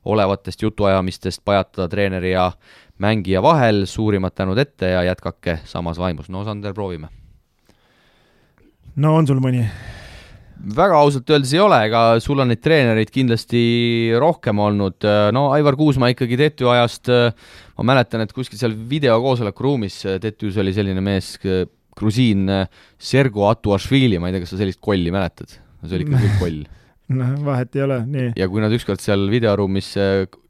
olevatest jutuajamistest pajatada treeneri ja mängija vahel, suurimad tänud ette ja jätkake samas vaimus. No Sander, proovime. No on sul mõni? Väga ausalt öeldes ei ole, ega sul on neid treenereid kindlasti rohkem olnud. No Aivar Kuusma ikkagi Tetü ajast, ma mäletan, et kuskil seal videokoosoleku ruumis Tetüs oli selline mees, grusiin Sergo Atuašvili, ma ei tea, kas sa sellist kolli mäletad? See oli ikka küll koll. No, vahet ei ole, nii. Ja kui nad ükskord seal videoruumis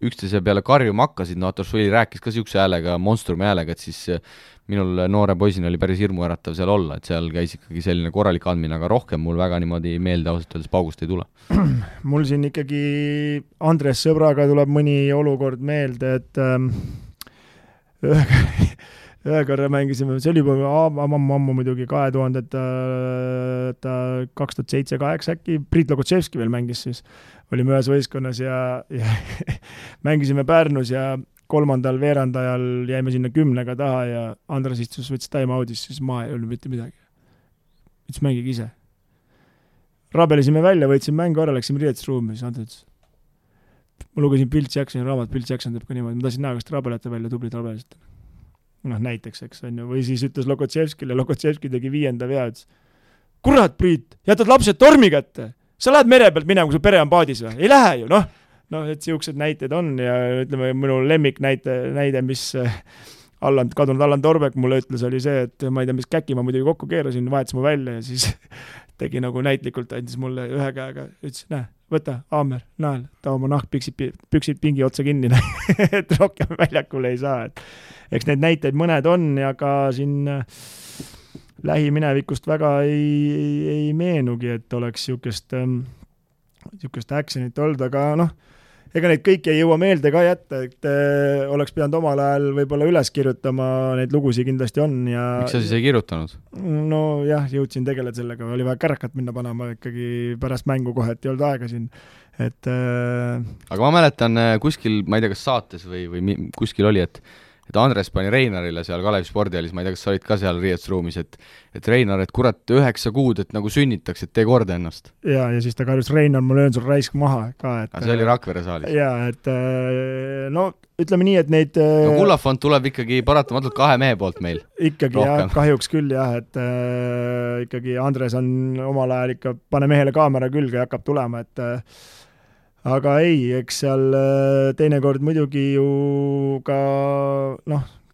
üksteise peale karjuma hakkasid, no Atuašvili rääkis ka siukse häälega, monstrumi häälega, et siis minul noore poisina oli päris hirmuäratav seal olla, et seal käis ikkagi selline korralik andmine, aga rohkem mul väga niimoodi meelde ausalt öeldes paugust ei tule. Mul siin ikkagi Andres sõbraga tuleb mõni olukord meelde, et ühe korra mängisime, see oli juba ammu muidugi 2007-2008 äkki, Priit Logotševski veel mängis siis, olime ühes võistkonnas ja mängisime Pärnus ja 3. veerandajal jäime sinna 10 taha ja Andres istus, võttis time-out'is, siis ma ei olnud mitte midagi. Võttis mängige ise. Rabelisime välja, võtsime mängu ära, läksime riietusruumi, siis Andres ma lugesin Bill Jacksoni raamat, Bill Jackson teeb ka niimoodi, ma tahtsin näha, kas te rabelete välja, tublid rabelised. Noh, näiteks, eks on ju, või siis ütles Logotševskile, Logotševski tegi 5. vea, ütles, kurat, Priit, jätad lapsed tormi kätte, sa lähed mere pealt minema, kui su pere on paadis või? Ei lähe ju, noh, et siuksed näited on ja ütleme, minu lemmik näide, mis kadunud Allan Torbek mulle ütles, oli see, et ma ei tea, mis käki ma muidugi kokku keerasin, vahetas mu välja ja siis tegi nagu näitlikult, andis mulle ühe käega, ütles, näe, võta, Aamer, nael, ta oma püksid pingi otsa kinni, et rohkem väljakule ei saa, et eks need näiteid mõned on ja ka siin lähiminevikust väga ei meenugi, et oleks siukest actionit olnud, aga noh, ega neid kõiki ei jõua meelde ka jätta, et oleks pidanud omal ajal võib-olla üles kirjutama, neid lugusid kindlasti on ja... Miks sa siis ei kirjutanud? No jah, jõudsin tegeleda sellega, oli vaja kärakat minna panema ikkagi pärast mängu kohe, et ei olnud aega siin, et... Aga ma mäletan kuskil, ma ei tea, kas saates või kuskil oli, et Andres pani Reinarile seal Kalevi spordialis, ma ei tea, kas sa olid ka seal riietusruumis, et Reinar, et kurat 9 kuud, et nagu sünnitaks, et tee korda ennast. Ja siis ta karjus, Reinar, ma löön sul raisk maha ka. Aga see oli Rakvere saalis. Ja, et no ütleme nii, et neid... No Kullafond tuleb ikkagi paratamatult 2 mehe poolt meil. Ikkagi rohkem. Jah, kahjuks küll jah, et ikkagi Andres on omal ajal ikka, pane mehele kaamera külge ja hakkab tulema, et aga ei, eks seal teinekord muidugi ju ka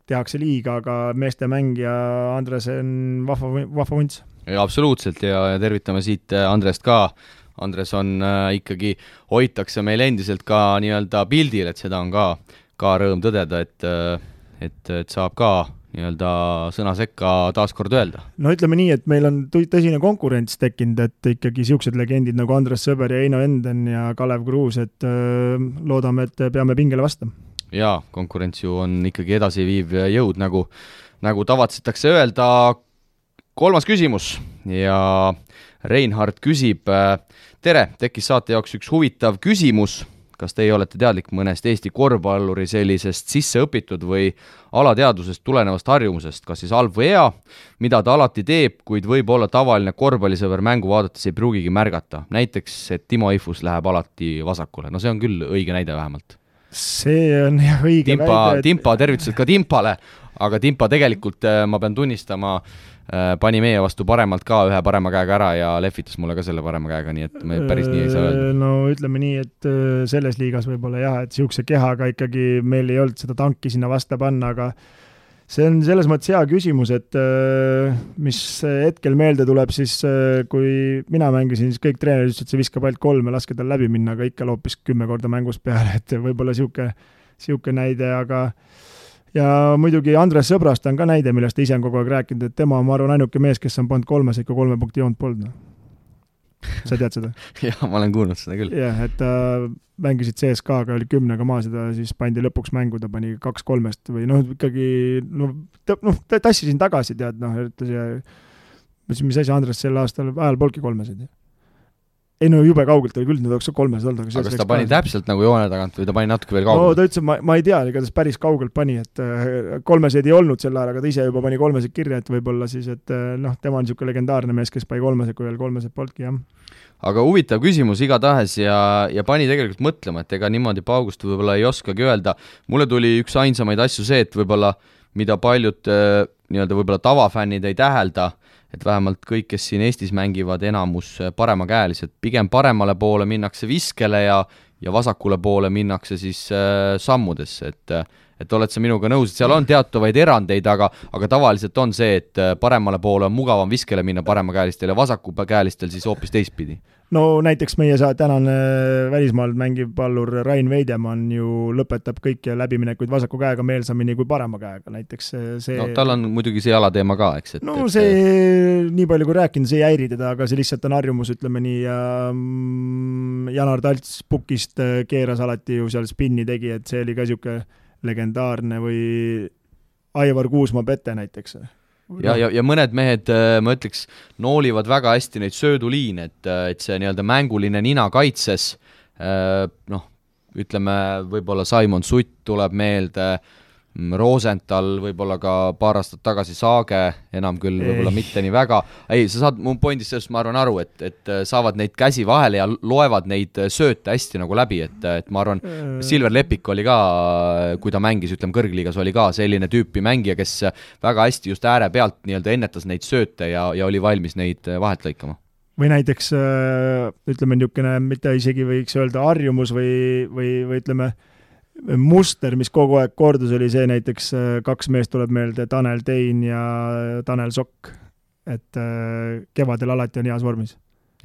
tehakse liiga, aga meeste mängija Andres on vahva vunts. Ja absoluutselt ja tervitame siit Andrest ka. Andres on ikkagi, hoitakse meil endiselt ka nii-öelda pildil, et seda on ka rõõm tõdeda, et saab ka nii-öelda sõna sekka taaskord öelda. No ütleme nii, et meil on tõsine konkurents tekkinud, et ikkagi siuksed legendid nagu Andres Sõber ja Eino Enden ja Kalev Kruus, et loodame, et peame pingele vastama. Jaa, konkurents ju on ikkagi edasiviiv jõud, nagu tavatsetakse öelda. 3. küsimus ja Reinhard küsib, tere, tekkis saate jaoks üks huvitav küsimus. Kas teie olete teadlik mõnest Eesti korvpalluri sellisest sisse õpitud või alateadusest tulenevast harjumusest, kas siis halb või hea, mida ta alati teeb, kuid võib olla tavaline korvpallisõber mängu vaadates ei pruugigi märgata. Näiteks, et Timo Ifus läheb alati vasakule. No see on küll õige näide vähemalt. See on jah õige väide. Timpa, tervitused ka Timpale, aga Timpa tegelikult, ma pean tunnistama, pani meie vastu paremalt ka ühe parema käega ära ja lehvitas mulle ka selle parema käega, nii et me päris nii ei saa öelda. No ütleme nii, et selles liigas võib-olla jah, et siukse kehaga ikkagi meil ei olnud seda tanki sinna vasta panna, aga see on selles mõttes hea küsimus, et mis hetkel meelde tuleb, siis kui mina mängisin, siis kõik treenerid ütlesid, et see viskab ainult 3 ja laske tal läbi minna, aga ikka loopis 10 korda mängus peale, et võib-olla siuke näide, aga ja muidugi Andres Sõbrast on ka näide, millest ise on kogu aeg rääkinud, et tema on, ma arvan, ainuke mees, kes on pannud 3 ikka 3 punkti joont polnud. Sa tead seda? Jah, ma olen kuulnud seda küll. Jah, et mängisid CSK-ga, oli 10-ga maas ja ta siis pandi lõpuks mängu, ta pani 2-3 või ikkagi, tassisin tagasi, tead, mis asi Andres sel aastal ajal polki 3. Ei no jube kaugelt oli küll, need oleks 3 olnud. Aga kas ta pani täpselt nagu joone tagant või ta pani natuke veel kaugelt? No ta ütles, ma ei tea, ega ta päris kaugelt pani, et 3 ei olnud sel ajal, aga ta ise juba pani 3 kirja, et võib-olla siis, et tema on niisugune legendaarne mees, kes pani 3, kui veel 3 polki, jah. Aga huvitav küsimus igatahes ja pani tegelikult mõtlema, et ega niimoodi paugust võib-olla ei oskagi öelda. Mulle tuli üks ainsamaid asju see, et võib-olla mida paljud nii-öelda võib-olla tavafännid ei tähelda, et vähemalt kõik, kes siin Eestis mängivad, enamus paremakäelised, pigem paremale poole minnakse viskele ja vasakule poole minnakse siis sammudesse, et oled sa minuga nõus, et seal on teatavaid erandeid, aga tavaliselt on see, et paremale poole on mugavam viskele minna paremakäelistel ja vasakukäelistel siis hoopis teistpidi. No näiteks meie tänane välismaal mängiv pallur Rain Veidemann ju lõpetab kõik läbiminekuid vasaku käega meelsamini kui parema käega, näiteks see... No tal on muidugi see jalateema ka, eks? See nii palju kui rääkinud, see ei häiri teda, aga see lihtsalt on harjumus, ütleme nii, ja Janar Talts pukist keeras alati ju seal spinni tegi, et see oli ka siuke legendaarne või Aivar Kuusma Pete näiteks. Ja mõned mehed, ma ütleks, noolivad väga hästi neid sööduliine, et see nii-öelda mänguline nina kaitses, ütleme, võib-olla Simon Sutt tuleb meelde, Rosenthal, võib-olla ka paar aastat tagasi Saage, enam küll võib-olla mitte nii väga. Ei, sa saad mu pointist sellest, ma arvan, aru, et saavad neid käsi vahele ja loevad neid sööte hästi nagu läbi, et ma arvan, Silver Lepik oli ka, kui ta mängis, ütleme, kõrgliigas oli ka selline tüüpi mängija, kes väga hästi just ääre pealt nii-öelda ennetas neid sööte ja oli valmis neid vahelt lõikama. Või näiteks, ütleme, niisugune, mitte isegi võiks öelda harjumus või ütleme, muster, mis kogu aeg kordus, oli see näiteks 2 meest tuleb meelde, Tanel Tein ja Tanel Sokk, et kevadel alati on heas vormis.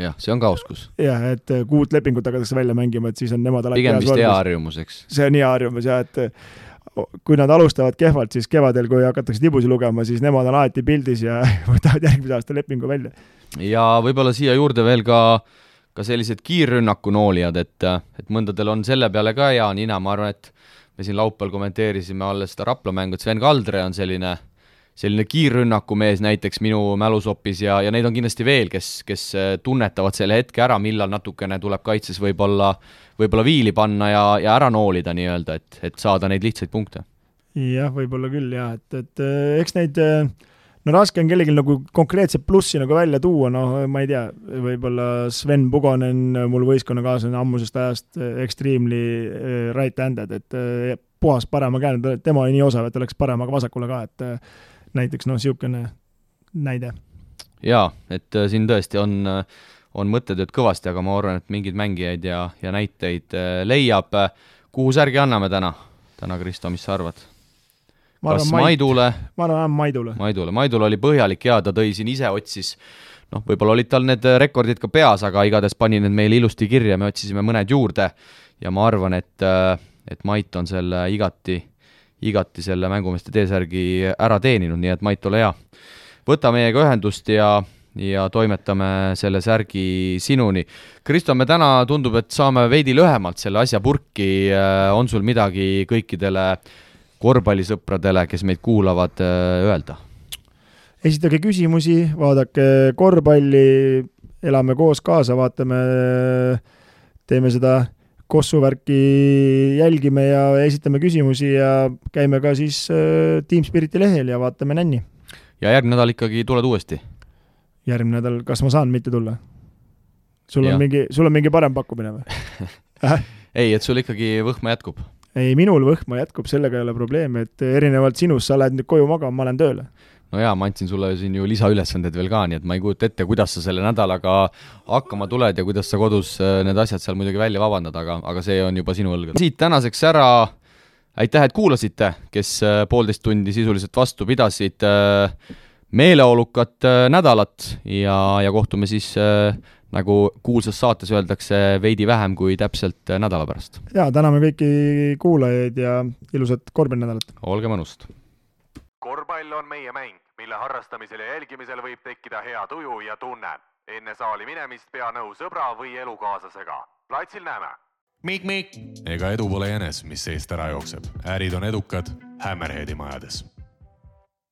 Jah, see on ka oskus. Jah, et 6 lepingut hakatakse välja mängima, et siis on nemad alati pigem heas vormis. Pigem vist hea harjumus, eks? See on hea harjumus, jah, et kui nad alustavad kehvalt, siis kevadel, kui hakatakse tibusi lugema, siis nemad on alati pildis ja võtavad järgmise aasta lepingu välja. Ja võib-olla siia juurde veel ka sellised kiirrünnaku noolijad, et mõndadel on selle peale ka hea nina, ma arvan, et me siin laupäeval kommenteerisime alles seda Rapla mängu, et Sven Kaldre on selline kiirrünnaku mees näiteks minu mälusopis ja neid on kindlasti veel, kes tunnetavad selle hetke ära, millal natukene tuleb kaitses võib-olla viili panna ja ära noolida nii-öelda, et saada neid lihtsaid punkte. Jah, võib-olla küll, jah, et eks neid... No raske on kellelgi nagu konkreetset plussi nagu välja tuua, ma ei tea, võib-olla Sven Pugonen, mul võistkonnakaaslane ammusest ajast extremely right-handed, et puhas parema käe, tema oli nii osav, et oleks paremaga vasakule ka, et näiteks siukene näide. Jaa, et siin tõesti on mõttetööd kõvasti, aga ma arvan, et mingid mängijaid ja näiteid leiab. Kuhu särgi anname täna, Kristo, mis sa arvad? kas Maidule? Ma arvan Maidule. Maidule oli põhjalik ja ta tõi siin ise otsis, võib-olla olid tal need rekordid ka peas, aga igatahes pani need meile ilusti kirja, me otsisime mõned juurde ja ma arvan, et Mait on selle igati selle mängumeeste T-särgi ära teeninud, nii et Mait, ole hea. Võta meiega ühendust ja toimetame selle särgi sinuni. Kristo, me täna tundub, et saame veidi lühemalt selle asja purki. On sul midagi kõikidele korvpallisõpradele, kes meid kuulavad, öelda? Esitage küsimusi, vaadake korvpalli, elame koos kaasa, vaatame, teeme seda kossuvärki, jälgime ja esitame küsimusi ja käime ka siis Team Spiriti lehel ja vaatame nänni. Ja järgmine nädal ikkagi tuled uuesti? Järgmine nädal, kas ma saan mitte tulla? Sul on mingi parem pakkumine või? Ei, et sul ikkagi võhma jätkub? Ei, minul võhma jätkub, sellega ei ole probleemi, et erinevalt sinust sa lähed nüüd koju magama, ma olen tööle. No jaa, ma andsin sulle siin ju lisaülesanded veel ka, nii et ma ei kujuta ette, kuidas sa selle nädalaga hakkama tuled ja kuidas sa kodus need asjad seal muidugi välja vabandad, aga see on juba sinu õlgad. Siit tänaseks ära, aitäh, et kuulasite, kes 1,5 tundi sisuliselt vastu pidasid, meeleolukat nädalat ja kohtume siis, nagu kuulsas saates öeldakse, veidi vähem kui täpselt nädala pärast. Jaa, täname kõiki kuulajaid ja ilusat korvpallinädalat. Olge mõnust! Korvpall on meie mäng, mille harrastamisel ja jälgimisel võib tekkida hea tuju ja tunne. Enne saali minemist pea nõu sõbra või elukaaslasega. Platsil näeme! Mik! Ega edu pole jänes, mis seest ära jookseb. Ärid on edukad Hammerheadi majades.